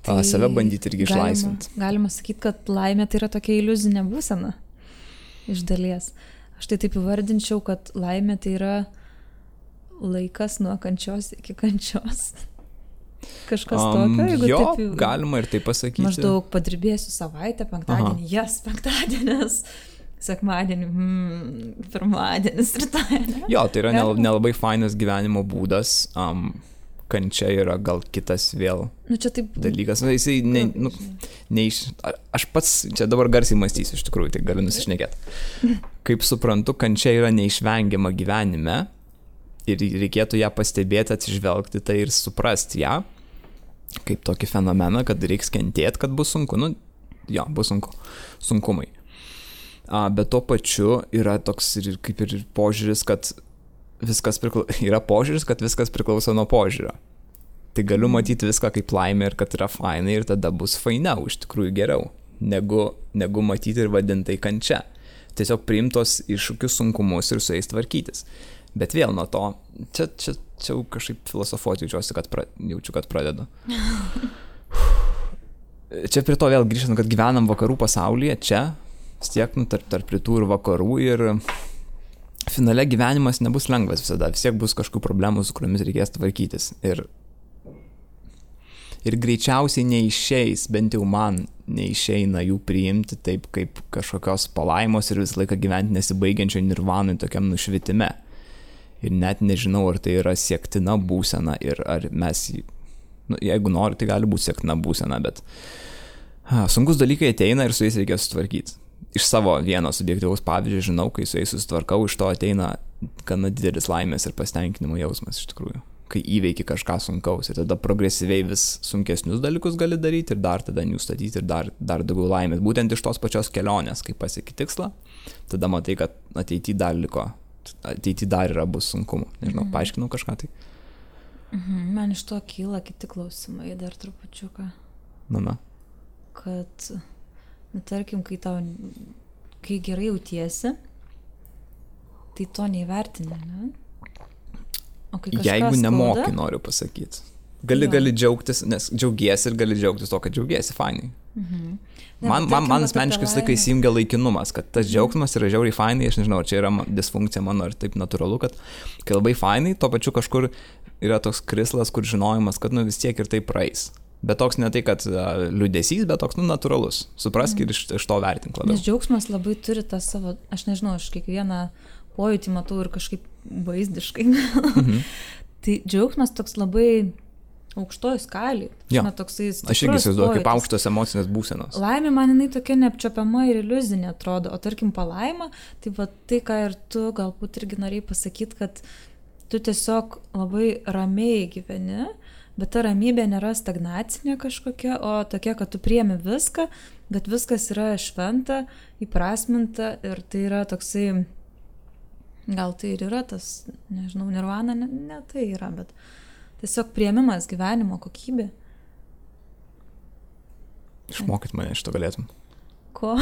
Save bandyti irgi išlaisvinti. Galima sakyti, kad laimė tai yra tokia iliuzinė būsena. Iš dalies. Aš tai taip įvardinčiau, kad laimė tai yra laikas nuo kančios iki kančios. Kažkas tokio, jeigu taip jau... galima ir taip pasakyti. Maždaug padirbėsiu savaitę, penktadienį, penktadienis, sekmadienį, pirmadienis, rytoj. Jo, tai yra nelabai fainas gyvenimo būdas, kančia yra gal kitas vėl čia taip dalykas. Jisai aš pats čia dabar garsiai mąstysiu, iš tikrųjų, tai galiu nusišnekėti. Kaip suprantu, kančia yra neišvengiama gyvenime ir reikėtų ją pastebėti, atsižvelgti tai ir suprasti ją, kaip tokį fenomeną, kad reiks kentėti, kad bus sunku. Bus sunku. Sunkumai. Bet tuo pačiu yra toks kaip ir požiūris, kad yra požiūris, kad viskas priklauso nuo požiūrio. Tai galiu matyti viską kaip laimė ir kad yra fainai ir tada bus fainiau, iš tikrųjų geriau, negu matyti ir vadintai kančia. Tiesiog priimtos iššūkius, sunkumus ir su jais tvarkytis. Bet vėl nuo to, čia kažkaip filosofuoti jaučiu, kad pradedu. Čia prie to vėl grįžtant, kad gyvenam vakarų pasaulyje, čia, vis tiek, tarp rytų ir vakarų ir finale gyvenimas nebus lengvas visada, vis tiek bus kažkokių problemų, su kuriomis reikės tvarkytis. Ir greičiausiai neišeis, bent jau man neišeina jų priimti taip kaip kažkokios palaimos ir visą laiką gyventi nesibaigiančio nirvanui tokiam nušvitime. Ir net nežinau, ar tai yra siektina būsena ir ar mes, jeigu nori, tai gali būti siektina būsena, bet sunkus dalykai ateina ir su jais reikės sutvarkyti. Iš savo vieno subjektyvaus pavyzdžio žinau, kai su jais susitvarkau, iš to ateina gana didelis laimės ir pasitenkinimo jausmas iš tikrųjų, kai įveiki kažką sunkaus ir tada progresyviai vis sunkesnius dalykus gali daryti ir dar tada jų statyti ir dar daugiau laimės. Būtent iš tos pačios kelionės, kai pasieki tikslą, tada matai, kad ateityje dar yra bus sunkumų. Nežinau, paaiškinau kažką tai. Man iš to kyla kiti klausimai dar trupučiuką. Kad tarkim, kai gerai jautiesi, tai to neįvertini, ne? O kai kažkas jeigu nemoki, noriu pasakyti. Gali džiaugtis, nes džiaugiesi ir gali džiaugtis to, kad džiaugiesi, fainai. Man asmeniškai visą laiką įsijungia laikinumas, kad tas džiaugsmas yra žiauriai fainai, aš nežinau, čia yra disfunkcija mano ir taip natūralu, kad kai labai fainai, tuo pačiu kažkur yra toks krislas, kur žinojimas, kad vis tiek ir tai praeis. Bet toks ne tai, kad liūdesys, bet toks natūralus. Suprask ir iš to vertink labiau. Nes džiaugsmas labai turi tą savo, aš nežinau, aš kiekvieną pojūtį matau ir kažkaip vaizdiškai. Tai džiaugsmas toks labai aukštoj skalėj. Aš irgi įsivaizduoju, kaip aukštos emocinės būsenos. Laimė man jinai tokia neapčiuopiama ir iliuzinė atrodo, o tarkim palaima, tai va tai, ką ir tu galbūt irgi norėjai pasakyti, kad tu tiesiog labai ramiai gyveni, bet ta ramybė nėra stagnacinė kažkokia, o tokia, kad tu priemi viską, bet viskas yra šventa, įprasminta ir tai yra toksai, gal tai ir yra tas, nežinau, nirvana, ne tai yra, bet tiesiog priėmimas gyvenimo kokybė. Išmokyt mane šito galėtum. Ko?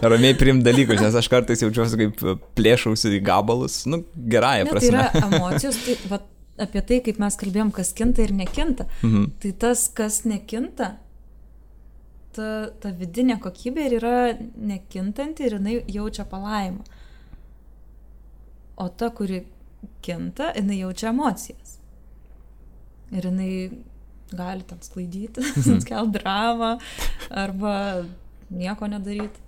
Ramiai priimt dalykus, nes aš kartais jaučiuosi kaip plėšausi į gabalus, gerąją prasme. Tai yra emocijos, tai apie tai, kaip mes kalbėjom, kas kinta ir nekinta. Tai tas, kas nekinta, ta vidinė kokybė ir yra nekintanti ir jinai jaučia palaimą. O ta, kuri kinta, jinai jaučia emocijas. Ir jinai gali ten sklaidyti, skelt dramą arba nieko nedaryti.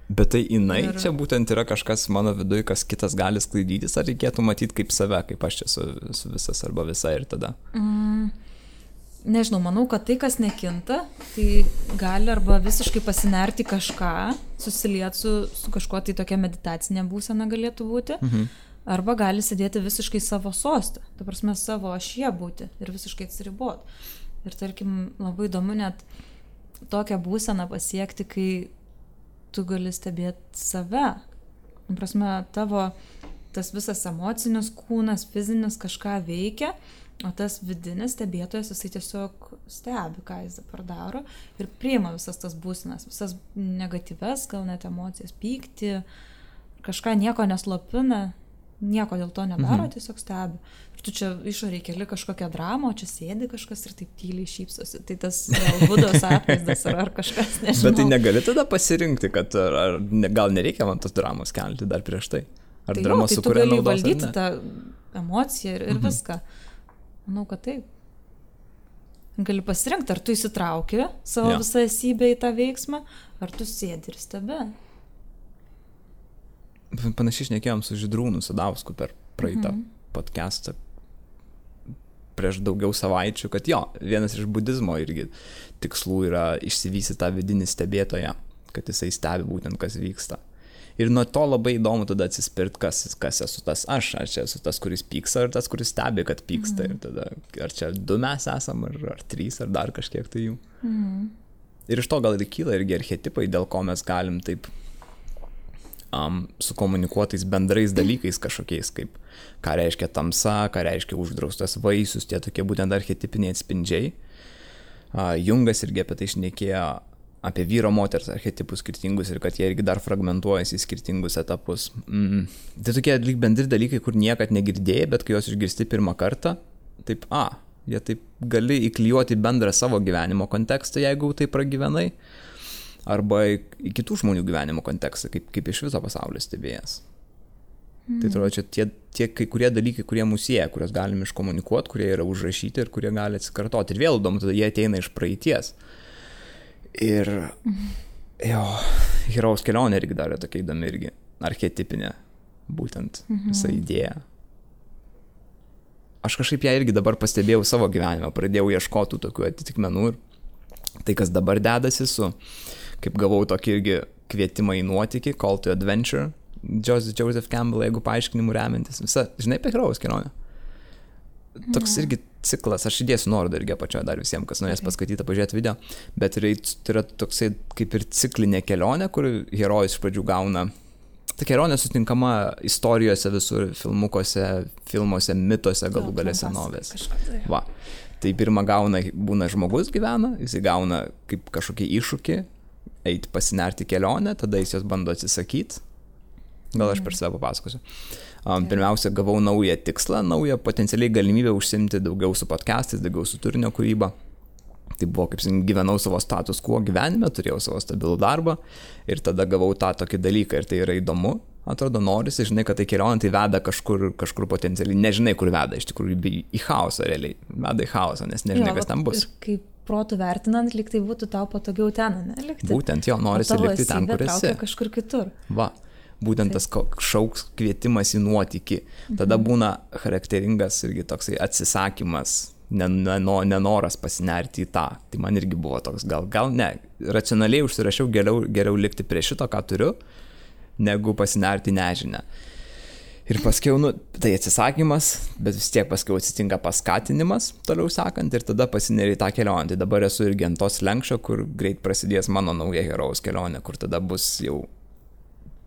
Bet tai jinai čia būtent yra kažkas mano viduje, kas kitas gali sklaidytis, ar reikėtų matyti kaip save, kaip aš čia su visas arba visa ir tada? Nežinau, manau, kad tai, kas nekinta, tai gali arba visiškai pasinerti kažką, susilieti su kažkuo, tai tokia meditacinė būsena galėtų būti, arba gali sėdėti visiškai savo sostą, ta prasme savo ašyje būti ir visiškai atsiriboti. Ir tarkim, labai įdomu net tokią būseną pasiekti, kai tu gali stebėti save. Ta prasme, tavo tas visas emocinis kūnas, fizinis kažką veikia, o tas vidinis stebėtojas, jisai tiesiog stebi, ką jis dabar daro ir priima visas tas būsenas, visas negatyves, gal net emocijas, pyktį, kažką nieko neslopina, nieko dėl to nedaro, tiesiog stebi. Ir tu čia išoriai keli kažkokią dramą, o čia sėdi kažkas ir taip tyliai šypsosi. Tai tas Budos atvaizdas ar kažkas, nežinau. Bet tai negali tada pasirinkti, kad gal nereikia man tos dramos kelti dar prieš tai? Ar tai drama sukuria naudos? Tai tu gali valdyti tą emociją ir viską. Manau, kad taip. Gali pasirinkti, ar tu įsitrauki savo visą esybę į tą veiksmą, ar tu sėdi ir stebi. Panašiai šnekėjom su Žydrūnu Sadausku per praeitą podcastą prieš daugiau savaičių, kad jo, vienas iš budizmo irgi tikslų yra išsivystyti tą vidinį stebėtoją, kad jisai stebi būtent, kas vyksta. Ir nuo to labai įdomu tada atsispirt, kas esu tas aš, ar čia esu tas, kuris pyksta, ar tas, kuris stebi, kad pyksta. Ir tada, ar čia 2 mes esam, ar 3, ar dar kažkiek tai jų. Ir iš to gal ir kyla irgi archetipai, dėl ko mes galim taip su komunikuotais bendrais dalykais kažkokiais, kaip ką reiškia tamsa, ką reiškia uždraustas vaisius, tie tokie būtent archetipiniai atspindžiai. Jungas irgi apie tai šnekėjo, apie vyro moters archetipus skirtingus ir kad jie irgi dar fragmentuojasi į skirtingus etapus. Tai tokie lyg bendri dalykai, kur niekad negirdėjai, bet kai juos išgirsti pirmą kartą, taip, jie taip gali įklijuoti bendrą savo gyvenimo kontekstą, jeigu tai pragyvenai, arba į kitų žmonių gyvenimo kontekstą, kaip iš viso pasaulio stebėjęs. Tai atrodo, čia tie kai kurie dalykai, kurie mus sieja, kuriuos galime iškomunikuoti, kurie yra užrašyti ir kurie gali atsikartoti. Ir vėl įdomu, tada jie ateina iš praeities. Ir herojaus kelionė irgi dar yra tokia įdomi irgi, archetipinė, būtent visa idėja. Aš kažkaip ją irgi dabar pastebėjau savo gyvenime, pradėjau ieškoti tokių atitikmenų ir tai, kas dabar dedasi kaip gavau tokį irgi kvietimą į nuotykį, Call to Adventure, Joseph Campbell, jeigu paaiškinimu remiantis. Visa, žinai, apie herojaus kelionę. Toks irgi ciklas, aš įdėsiu nuorodą irgi apačioje dar visiems, kas norės paskaityti, pažiūrėti video, bet tai yra toksai kaip ir ciklinė kelionė, kur herojus iš pradžių gauna. Ta kelionė sutinkama istorijose visur, filmuose, mituose, galų gale senovės. Va. Tai pirmą būna žmogus gyvena, jis gauna kaip kažkokį iššūkį, eiti pasinerti kelionę, tada jis jos bando atsisakyti. Gal aš per save papasakosiu. Pirmiausia, gavau naują tikslą, naują potencialiai galimybę užsimti daugiau su podcastais, daugiau su turinio kūryba. Tai buvo, kaip gyvenau savo status quo gyvenime, turėjau savo stabilų darbą ir tada gavau tą tokį dalyką ir tai yra įdomu. Atrodo, norisi, žinai, kad tai kelionė tai veda kažkur potencialiai, nežinai, kur veda, iš tikrųjų į chaosą realiai, veda į chaosą, nes nežinai, kas ten bus. Ir kaip protų vertinant, lyg tai būtų tau patogiau ten, ne, likti. Būtent jo, norisi likti ten, kur esi. Kažkur kitur. Va, būtent tas šauks kvietimas į nuotykį. Tada būna charakteringas irgi toksai atsisakymas, nenoras pasinerti į tą. Tai man irgi buvo toks, gal ne, racionaliai užsirašiau geriau likti prie šito, ką turiu, negu pasinerti nežinę. Ir paskiau, tai atsisakymas, bet vis tiek paskiau atsitinka paskatinimas, toliau sakant, ir tada pasineri į tą kelionę. Tai dabar esu irgi ant tos lenkščio, kur greit prasidės mano nauja herojaus kelionė, kur tada bus jau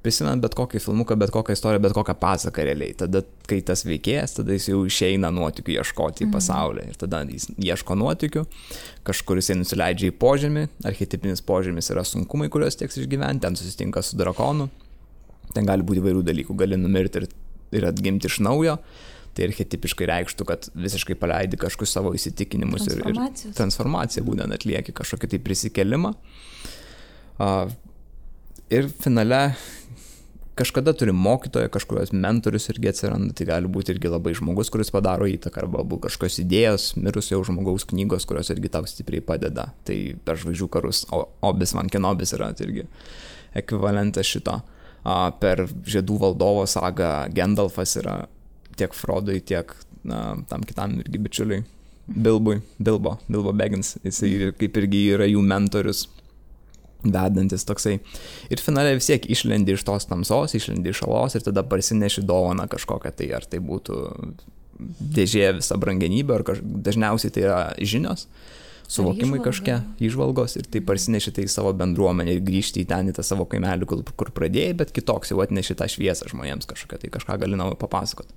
prisimint bet kokį filmuką, bet kokią istoriją, bet kokią pasaką realiai. Tada, kai tas veikėjas, tada jis jau išeina nuotykių ieškoti į pasaulį. Ir tada jis ieško nuotykių, kažkur jisai nusileidžia į požemį, archetipinis požemis yra sunkumai, kuriuos teks išgyventi, ten susitinka su drakonu. Ten gali būti įvairių dalykų, gali numirti ir atgimti iš naujo, tai archetipiškai reikštų, kad visiškai paleidi kažkokius savo įsitikinimus ir transformaciją būtent atlieki kažkokį tai prisikelimą. Ir finale kažkada turi mokytoją, kažkurios mentorius irgi atsiranda, tai gali būti irgi labai žmogus, kuris padaro įtaką, arba kažkokios idėjos, mirusio žmogaus knygos, kurios irgi tau stipriai padeda. Tai per Žvaigždžių karus Obi-Wan Kenobis yra irgi ekvivalentas šito. Per Žiedų valdovo sagą Gandalfas yra tiek Frodui, tiek tam kitam irgi bičiuliui Bilbo Baggins, jisai kaip irgi yra jų mentorius, vedantis toksai. Ir finale vis tiek išlendi iš tos tamsos, išlendi iš alos ir tada parsineši dovaną kažkokią, tai ar tai būtų dėžė visa brangenybė, ar dažniausiai tai yra žinios, suvokimai kažkokie, įžvalgos, ir tai parsineši tai į savo bendruomenę ir grįžti į ten, į tą savo kaimelį, kur pradėjai, bet kitoks jau atneši tą šviesą žmonėms kažkokią, tai kažką gali naujo papasakoti.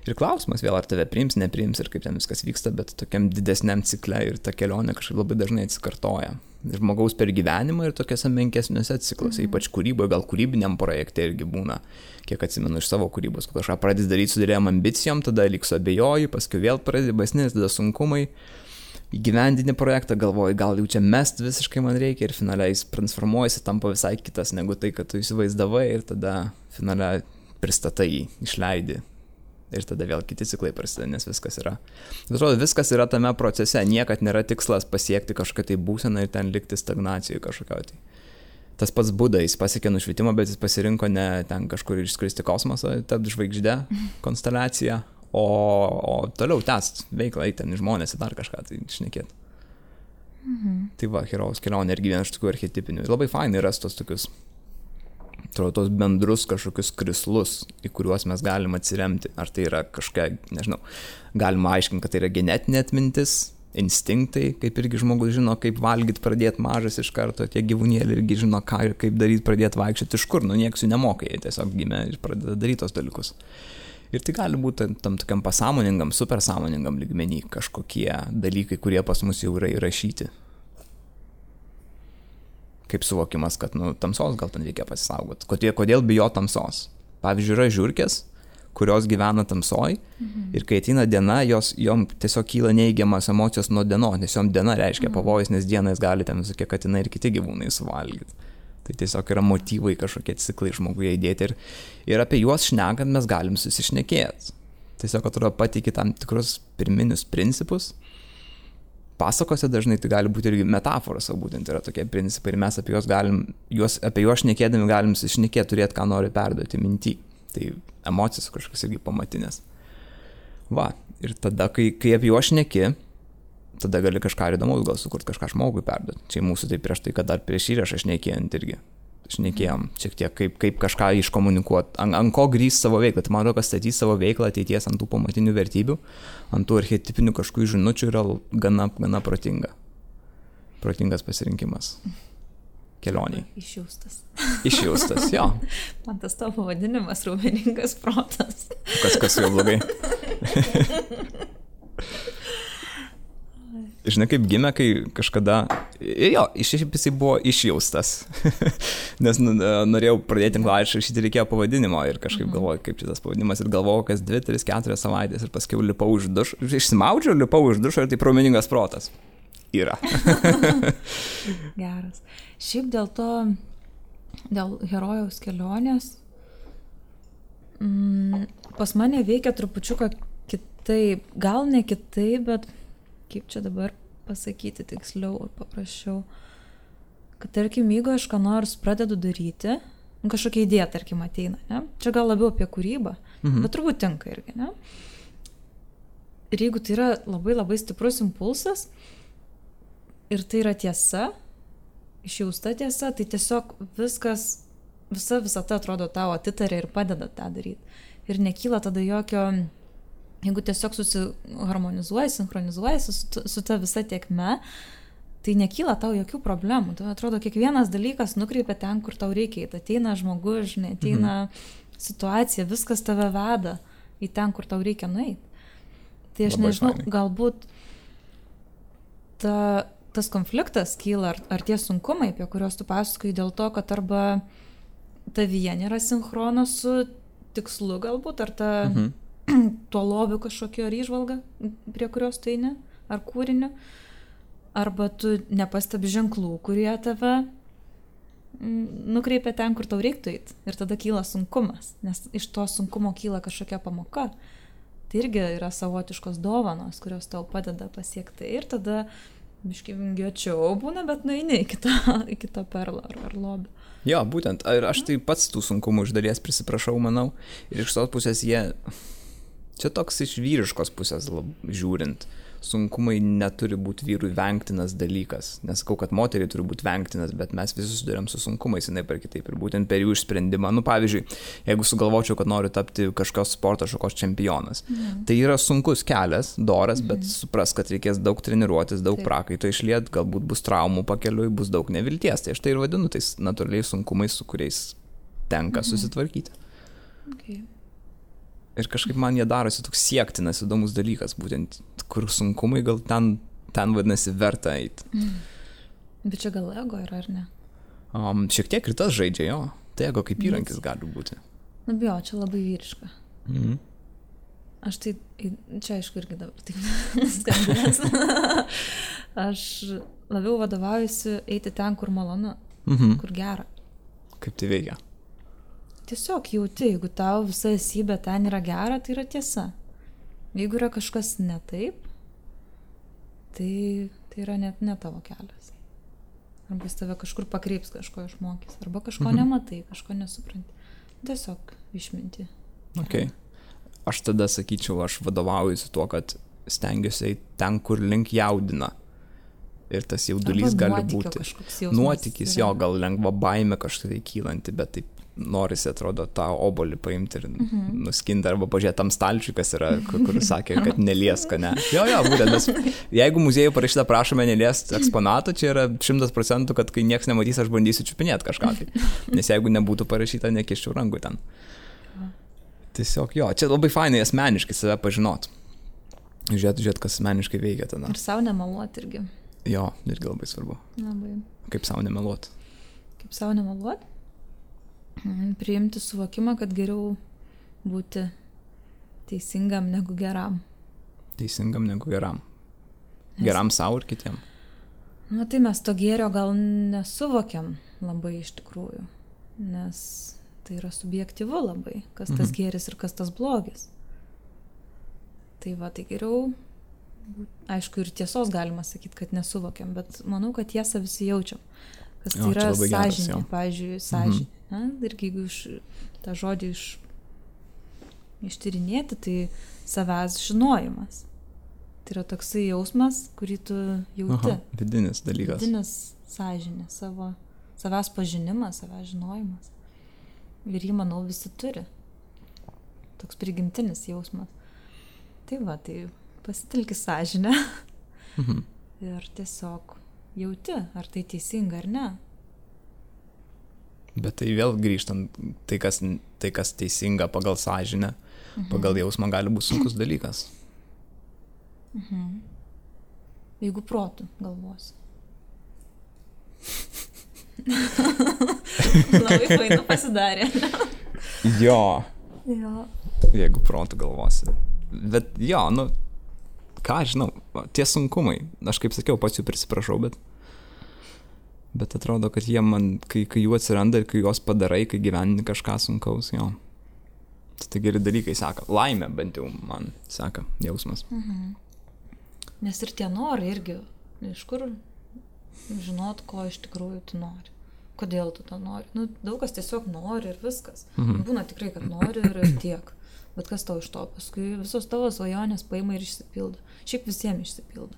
Ir klausimas vėl, ar tave priims, nepriims ir kaip ten viskas vyksta, bet tokiam didesniam cikle ir ta kelionė kažkaip labai dažnai atsikartoja. Žmogaus per gyvenimą ir tokiuose menkesniuose cikluose, ypač kūryboje, gal kūrybiniam projekte irgi būna, kiek atsimenu iš savo kūrybos, kad kažką pradės daryti su didelėm ambicijom, tada lyg suabejoji, paskui vėl pradės baisnis, tada sunkumai. Įgyvendini projektą, galvoji, gal jau čia mest visiškai man reikia ir finaliai jis transformuojasi, tampa visai kitas negu tai, kad tu įsivaizdavai ir tada finaliai pristatai jį, išleidi ir tada vėl kiti ciklai prasideda, nes viskas yra. Atrodo, viskas yra tame procese, niekad nėra tikslas pasiekti kažkokią tai būseną ir ten likti stagnacijoje kažkokio. Tai. Tas pats Buda, jis pasiekė nušvitimą, bet jis pasirinko ne ten kažkur išskristi kosmosą, tapti žvaigždę, konsteliaciją, o toliau tęst veiklą, ten žmonės į dar kažką tai šnekėti. Tai va, herojaus kelionė irgi vienas iš tokių archetipinių. Labai fainai ras tos tokius, tos bendrus kažkokius krislus, į kuriuos mes galim atsiremti. Ar tai yra kažkokia, nežinau, galima aiškinti, kad tai yra genetinė atmintis, instinktai, kaip irgi žmogus žino, kaip valgyti pradėti mažas iš karto, tie gyvūnėliai irgi žino, ką ir kaip daryti, pradėti vaikščioti iš kur, nieks jų nemoka, jie tiesiog gimė ir pradeda daryti tos dalykus. Ir tai gali būti tam tokiam pasąmoningam, supersąmoningam lygmenį kažkokie dalykai, kurie pas mus jau yra įrašyti. Kaip suvokimas, kad tamsos gal ten reikia pasisaugoti. Kodėl bijo tamsos? Pavyzdžiui, yra žiurkės, kurios gyvena tamsoj ir kai ateina diena, jom tiesiog kyla neigiamas emocijos nuo dienos, nes jom diena reiškia pavojus, nes dienais gali ten visokie katinai ir kiti gyvūnai suvalgyti. Tai tiesiog yra motyvai kažkokie ciklai žmoguje įdėti ir apie juos šnekant mes galim susišnekėti. Tiesiog atrodo pateiki tam tikrus pirminius principus. Pasakose dažnai tai gali būti irgi metaforos, o būtent yra tokie principai ir mes apie juos šnekėdami galim susišnekėti, turėti, ką nori perduoti minty. Tai emocijos kažkas irgi pamatinės. Va, ir tada, kai apie juos šneki, tada gali kažką įdomaus gal sukurti, kažką žmogui perduoti. Čia mūsų tai prieš tai, kad dar prieš įrašą šnekėjant irgi. Šnekėjom šiek tiek, kaip kažką iškomunikuoti, ant ko grįs savo veiklą. Tai man atrodo, kad statys savo veiklą ateities ant tų pamatinių vertybių, ant tų archetipinių kažkokių žinučių yra gana protinga. Protingas pasirinkimas kelioniai. Išjaustas, jo. Man tas tavo pavadinimas raumeningas protas. Kas jau blogai. Žinai, kaip gimė, kai kažkada, jisai buvo išjaustas, nes norėjau pradėti tinklaraštį rašyti, reikėjo pavadinimo ir kažkaip galvoju, kaip šitas pavadinimas ir galvojau, kas 2, 3, 4 savaitės ir paskiau lipau iš dušo, išsimaudžiau, lipau iš dušo ir tai raumeningas protas. Yra. Geras. Šiaip dėl herojaus kelionės, pas mane veikia trupučiuką kitaip, gal ne kitaip, bet kaip čia dabar pasakyti tiksliau ir paprasčiau, kad tarkim, jeigu aš ką nors pradedu daryti, kažkokia idėja, tarkim, ateina, ne? Čia gal labiau apie kūrybą, bet turbūt tinka irgi, ne? Ir jeigu tai yra labai labai stiprus impulsas ir tai yra tiesa, išjausta tiesa, tai tiesiog visa ta atrodo tau atitarė ir padeda tą daryti. Ir nekyla tada jokio, jeigu tiesiog susiharmonizuoji, sinchronizuoji su ta visa tiekme, tai nekyla tau jokių problemų. Tai atrodo, kiekvienas dalykas nukreipia ten, kur tau reikia. Tai ateina žmogus, žinai, ateina situacija, viskas tave veda į ten, kur tau reikia nueiti. Tai aš nežinau, galbūt tas konfliktas kyla, ar tie sunkumai, apie kuriuos tu pasakoji, dėl to, kad arba tavyje nėra sinchrono su tikslu galbūt, ar tuo lobiu kažkokio ar įžvalga, prie kurios tu eini, ar kūriniu, arba tu nepastebi ženklų, kurie tave nukreipia ten, kur tau reiktų eiti. Ir tada kyla sunkumas, nes iš to sunkumo kyla kažkokia pamoka. Tai irgi yra savotiškos dovanos, kurios tau padeda pasiekti. Ir tada biškai vingiuočiau būna, bet nueini į kitą perlą ar lobį. Jo, būtent. Ir aš tai pats tų sunkumų iš dalies prisiprašau, manau. Ir iš tos pusės čia toks iš vyriškos pusės žiūrint, sunkumai neturi būti vyrui vengtinas dalykas. Nesakau, kad moteriai turi būti vengtinas, bet mes visi susidurėm su sunkumais, jinai per kitaip. Ir būtent per jų išsprendimą. Pavyzdžiui, jeigu sugalvočiau, kad noriu tapti kažkokios sporto šakos čempionas, tai yra sunkus kelias, doras, bet supras, kad reikės daug treniruotis, daug prakaito išliet, galbūt bus traumų pakeliui, bus daug nevilties. Tai aš tai ir vadinu tais natūraliais sunkumais, su kuriais tenka susitvarkyti. Okay. Ir kažkaip man jie darosi toks siektinas, įdomus dalykas, būtent kur sunkumai gal ten vadinasi verta eiti. Bet čia gal ego yra, ar ne? Šiek tiek ir tas žaidžia, jo. Tai ego kaip įrankis gali būti. Čia labai vyriška. Aš tai, čia aišku irgi dabar taip skambės. Aš labiau vadovaujuosi eiti ten, kur malonu, kur gera. Kaip tai veikia? Tiesiog jauti, jeigu tau visa esybė ten yra gera, tai yra tiesa. Jeigu yra kažkas ne taip, tai yra net ne tavo kelias. Arba jis tave kažkur pakreips, kažko išmokys. Arba kažko nematai, kažko nesupranti. Tiesiog išminti. Okay. aš tada sakyčiau, aš vadovaujuosi tuo, kad stengiuosi ten, kur link jaudina. Ir tas jaudulys gali būti. Nuotykis, jo, gal lengva baimė kažkaip kylanti, bet taip norisi, atrodo, tą obolį paimti ir nuskinti arba pažiūrėti tam stalčiui, kas yra, kur sakė, kad nelieska, ne. Jo, būtent, nes jeigu muziejų parašyta prašome neliesti eksponato, čia yra 100%, kad kai nieks nematys, aš bandysiu čiupinėti kažką. Tai. Nes jeigu nebūtų parašyta, nekiščiau rankų ten. Tiesiog jo, čia labai fainai asmeniškai save pažinot. Žiūrėt, kas asmeniškai veikia tada. Ir savo nemeluot irgi. Jo, irgi labai svarbu. Labai. Kaip savo nemeluot? Kaip savo nemeluot? Priimti suvokimą, kad geriau būti teisingam negu geram. Teisingam negu geram. Geram savo ir kitiem. Na tai mes to gėrio gal nesuvokiam labai iš tikrųjų, nes tai yra subjektyvu labai, kas tas gėris ir kas tas blogis. Tai va, tai geriau, aišku, ir tiesos galima sakyti, kad nesuvokiam, bet manau, kad tiesą visi jaučiam. Kas tai yra sąžinė, pavyzdžiui, sąžinė. Irgi jeigu tą žodį ištyrinėti, tai savęs žinojimas. Tai yra toksai jausmas, kurį tu jauti. Vidinis dalykas. Vidinis sąžinė, savęs pažinimas, savęs žinojimas. Ir jį, manau, visi turi. Toks prigimtinis jausmas. Tai va, tai pasitelki sąžinę ir tiesiog jauti, ar tai teisinga ar ne. Bet tai vėl grįžtant, tai kas teisinga pagal sąžinę, pagal jausmą gali būti sunkus dalykas. Jeigu protu galvosi. Labai fainu pasidarė. Jo. Jeigu protu galvosi. Bet jo, ką žinau, tie sunkumai, aš kaip sakiau, pats jų prisiprašau, bet atrodo, kad jie man, kai jų atsiranda ir kai juos padarai, kai gyveni kažką sunkaus, jo. Tai geri dalykai seka. Laimė bent jau man seka jausmas. Nes ir tie norai irgi, iš kur žinot, ko iš tikrųjų tu nori. Kodėl tu to nori. Daug kas tiesiog nori ir viskas. Būna tikrai, kad nori ir tiek. Bet kas tau iš to? Paskui visos tavo svajonės paima ir išsipildo. Šiaip visiems išsipildo.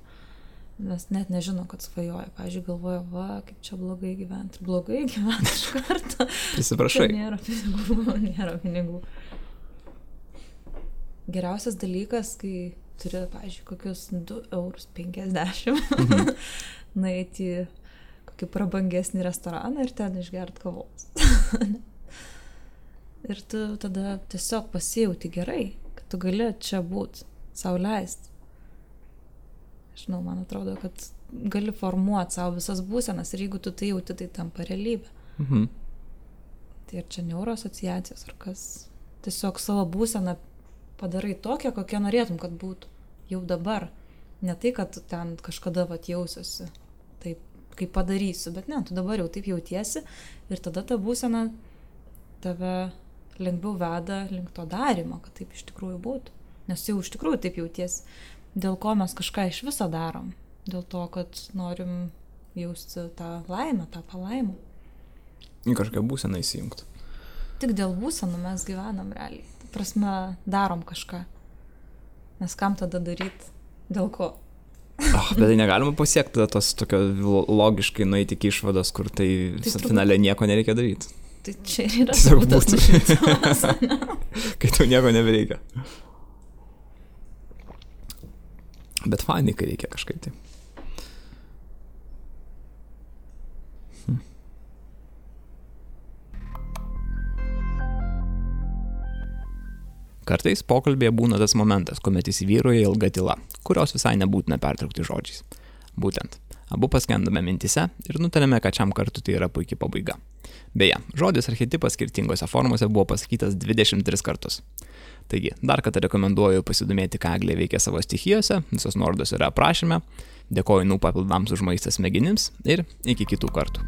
Mes net nežino, kad svajoja. Pavyzdžiui, galvoja, va, kaip čia blogai gyventi. Blogai gyventi iš karto. Prisiprašai. Nėra pinigų. Geriausias dalykas, kai turi, pavyzdžiui, kokius 2,50 €, nueiti į kokį prabangesnį restoraną ir ten išgert kavos. Ir tu tada tiesiog pasijauti gerai, kad tu gali čia būt, sau leisti. Žinau, man atrodo, kad gali formuoti savo visas būsenas ir jeigu tu tai jauti, tai tampa realybė. Tai ir čia neuroasociacijos ar kas. Tiesiog savo būseną padarai tokią, kokią norėtum, kad būtų jau dabar. Ne tai, kad tu ten kažkada jausiuosi taip, kaip padarysiu, bet ne, tu dabar jau taip jautiesi ir tada ta būsena tave lengviau veda link to darymo, kad taip iš tikrųjų būtų. Nes jau iš tikrųjų taip jautiesi. Dėl ko mes kažką iš viso darom? Dėl to, kad norim jausti tą laimę, tą palaimą. Į kažką būseną įsijungti. Tik dėl būsenų mes gyvenam realiai. Ta prasme, darom kažką. Nes kam tada daryti? Dėl ko? Bet tai negalima pasiekti tos tokio logiškai nueiti iki išvados, kur tai finale nieko nereikia daryti. Tai čia ir yra būdas nušvitimas. Kai tau nieko nebereikia. Bet fainai, kai reikia kažkaip tai. Kartais pokalbėje būna tas momentas, kuomet įsivyrauja ilga tyla, kurios visai nebūtina pertraukti žodžiais. Būtent, abu paskendame mintise ir nutarėme, kad šiam kartu tai yra puikiai pabaiga. Beje, žodis archetipas skirtingose formose buvo pasakytas 23 kartus. Taigi, dar kartą rekomenduoju pasidomėti, ką Eglė veikia savo stichijose, visos nuorodos yra aprašyme. Dėkoju papildams už maistą smegenims ir iki kitų kartų.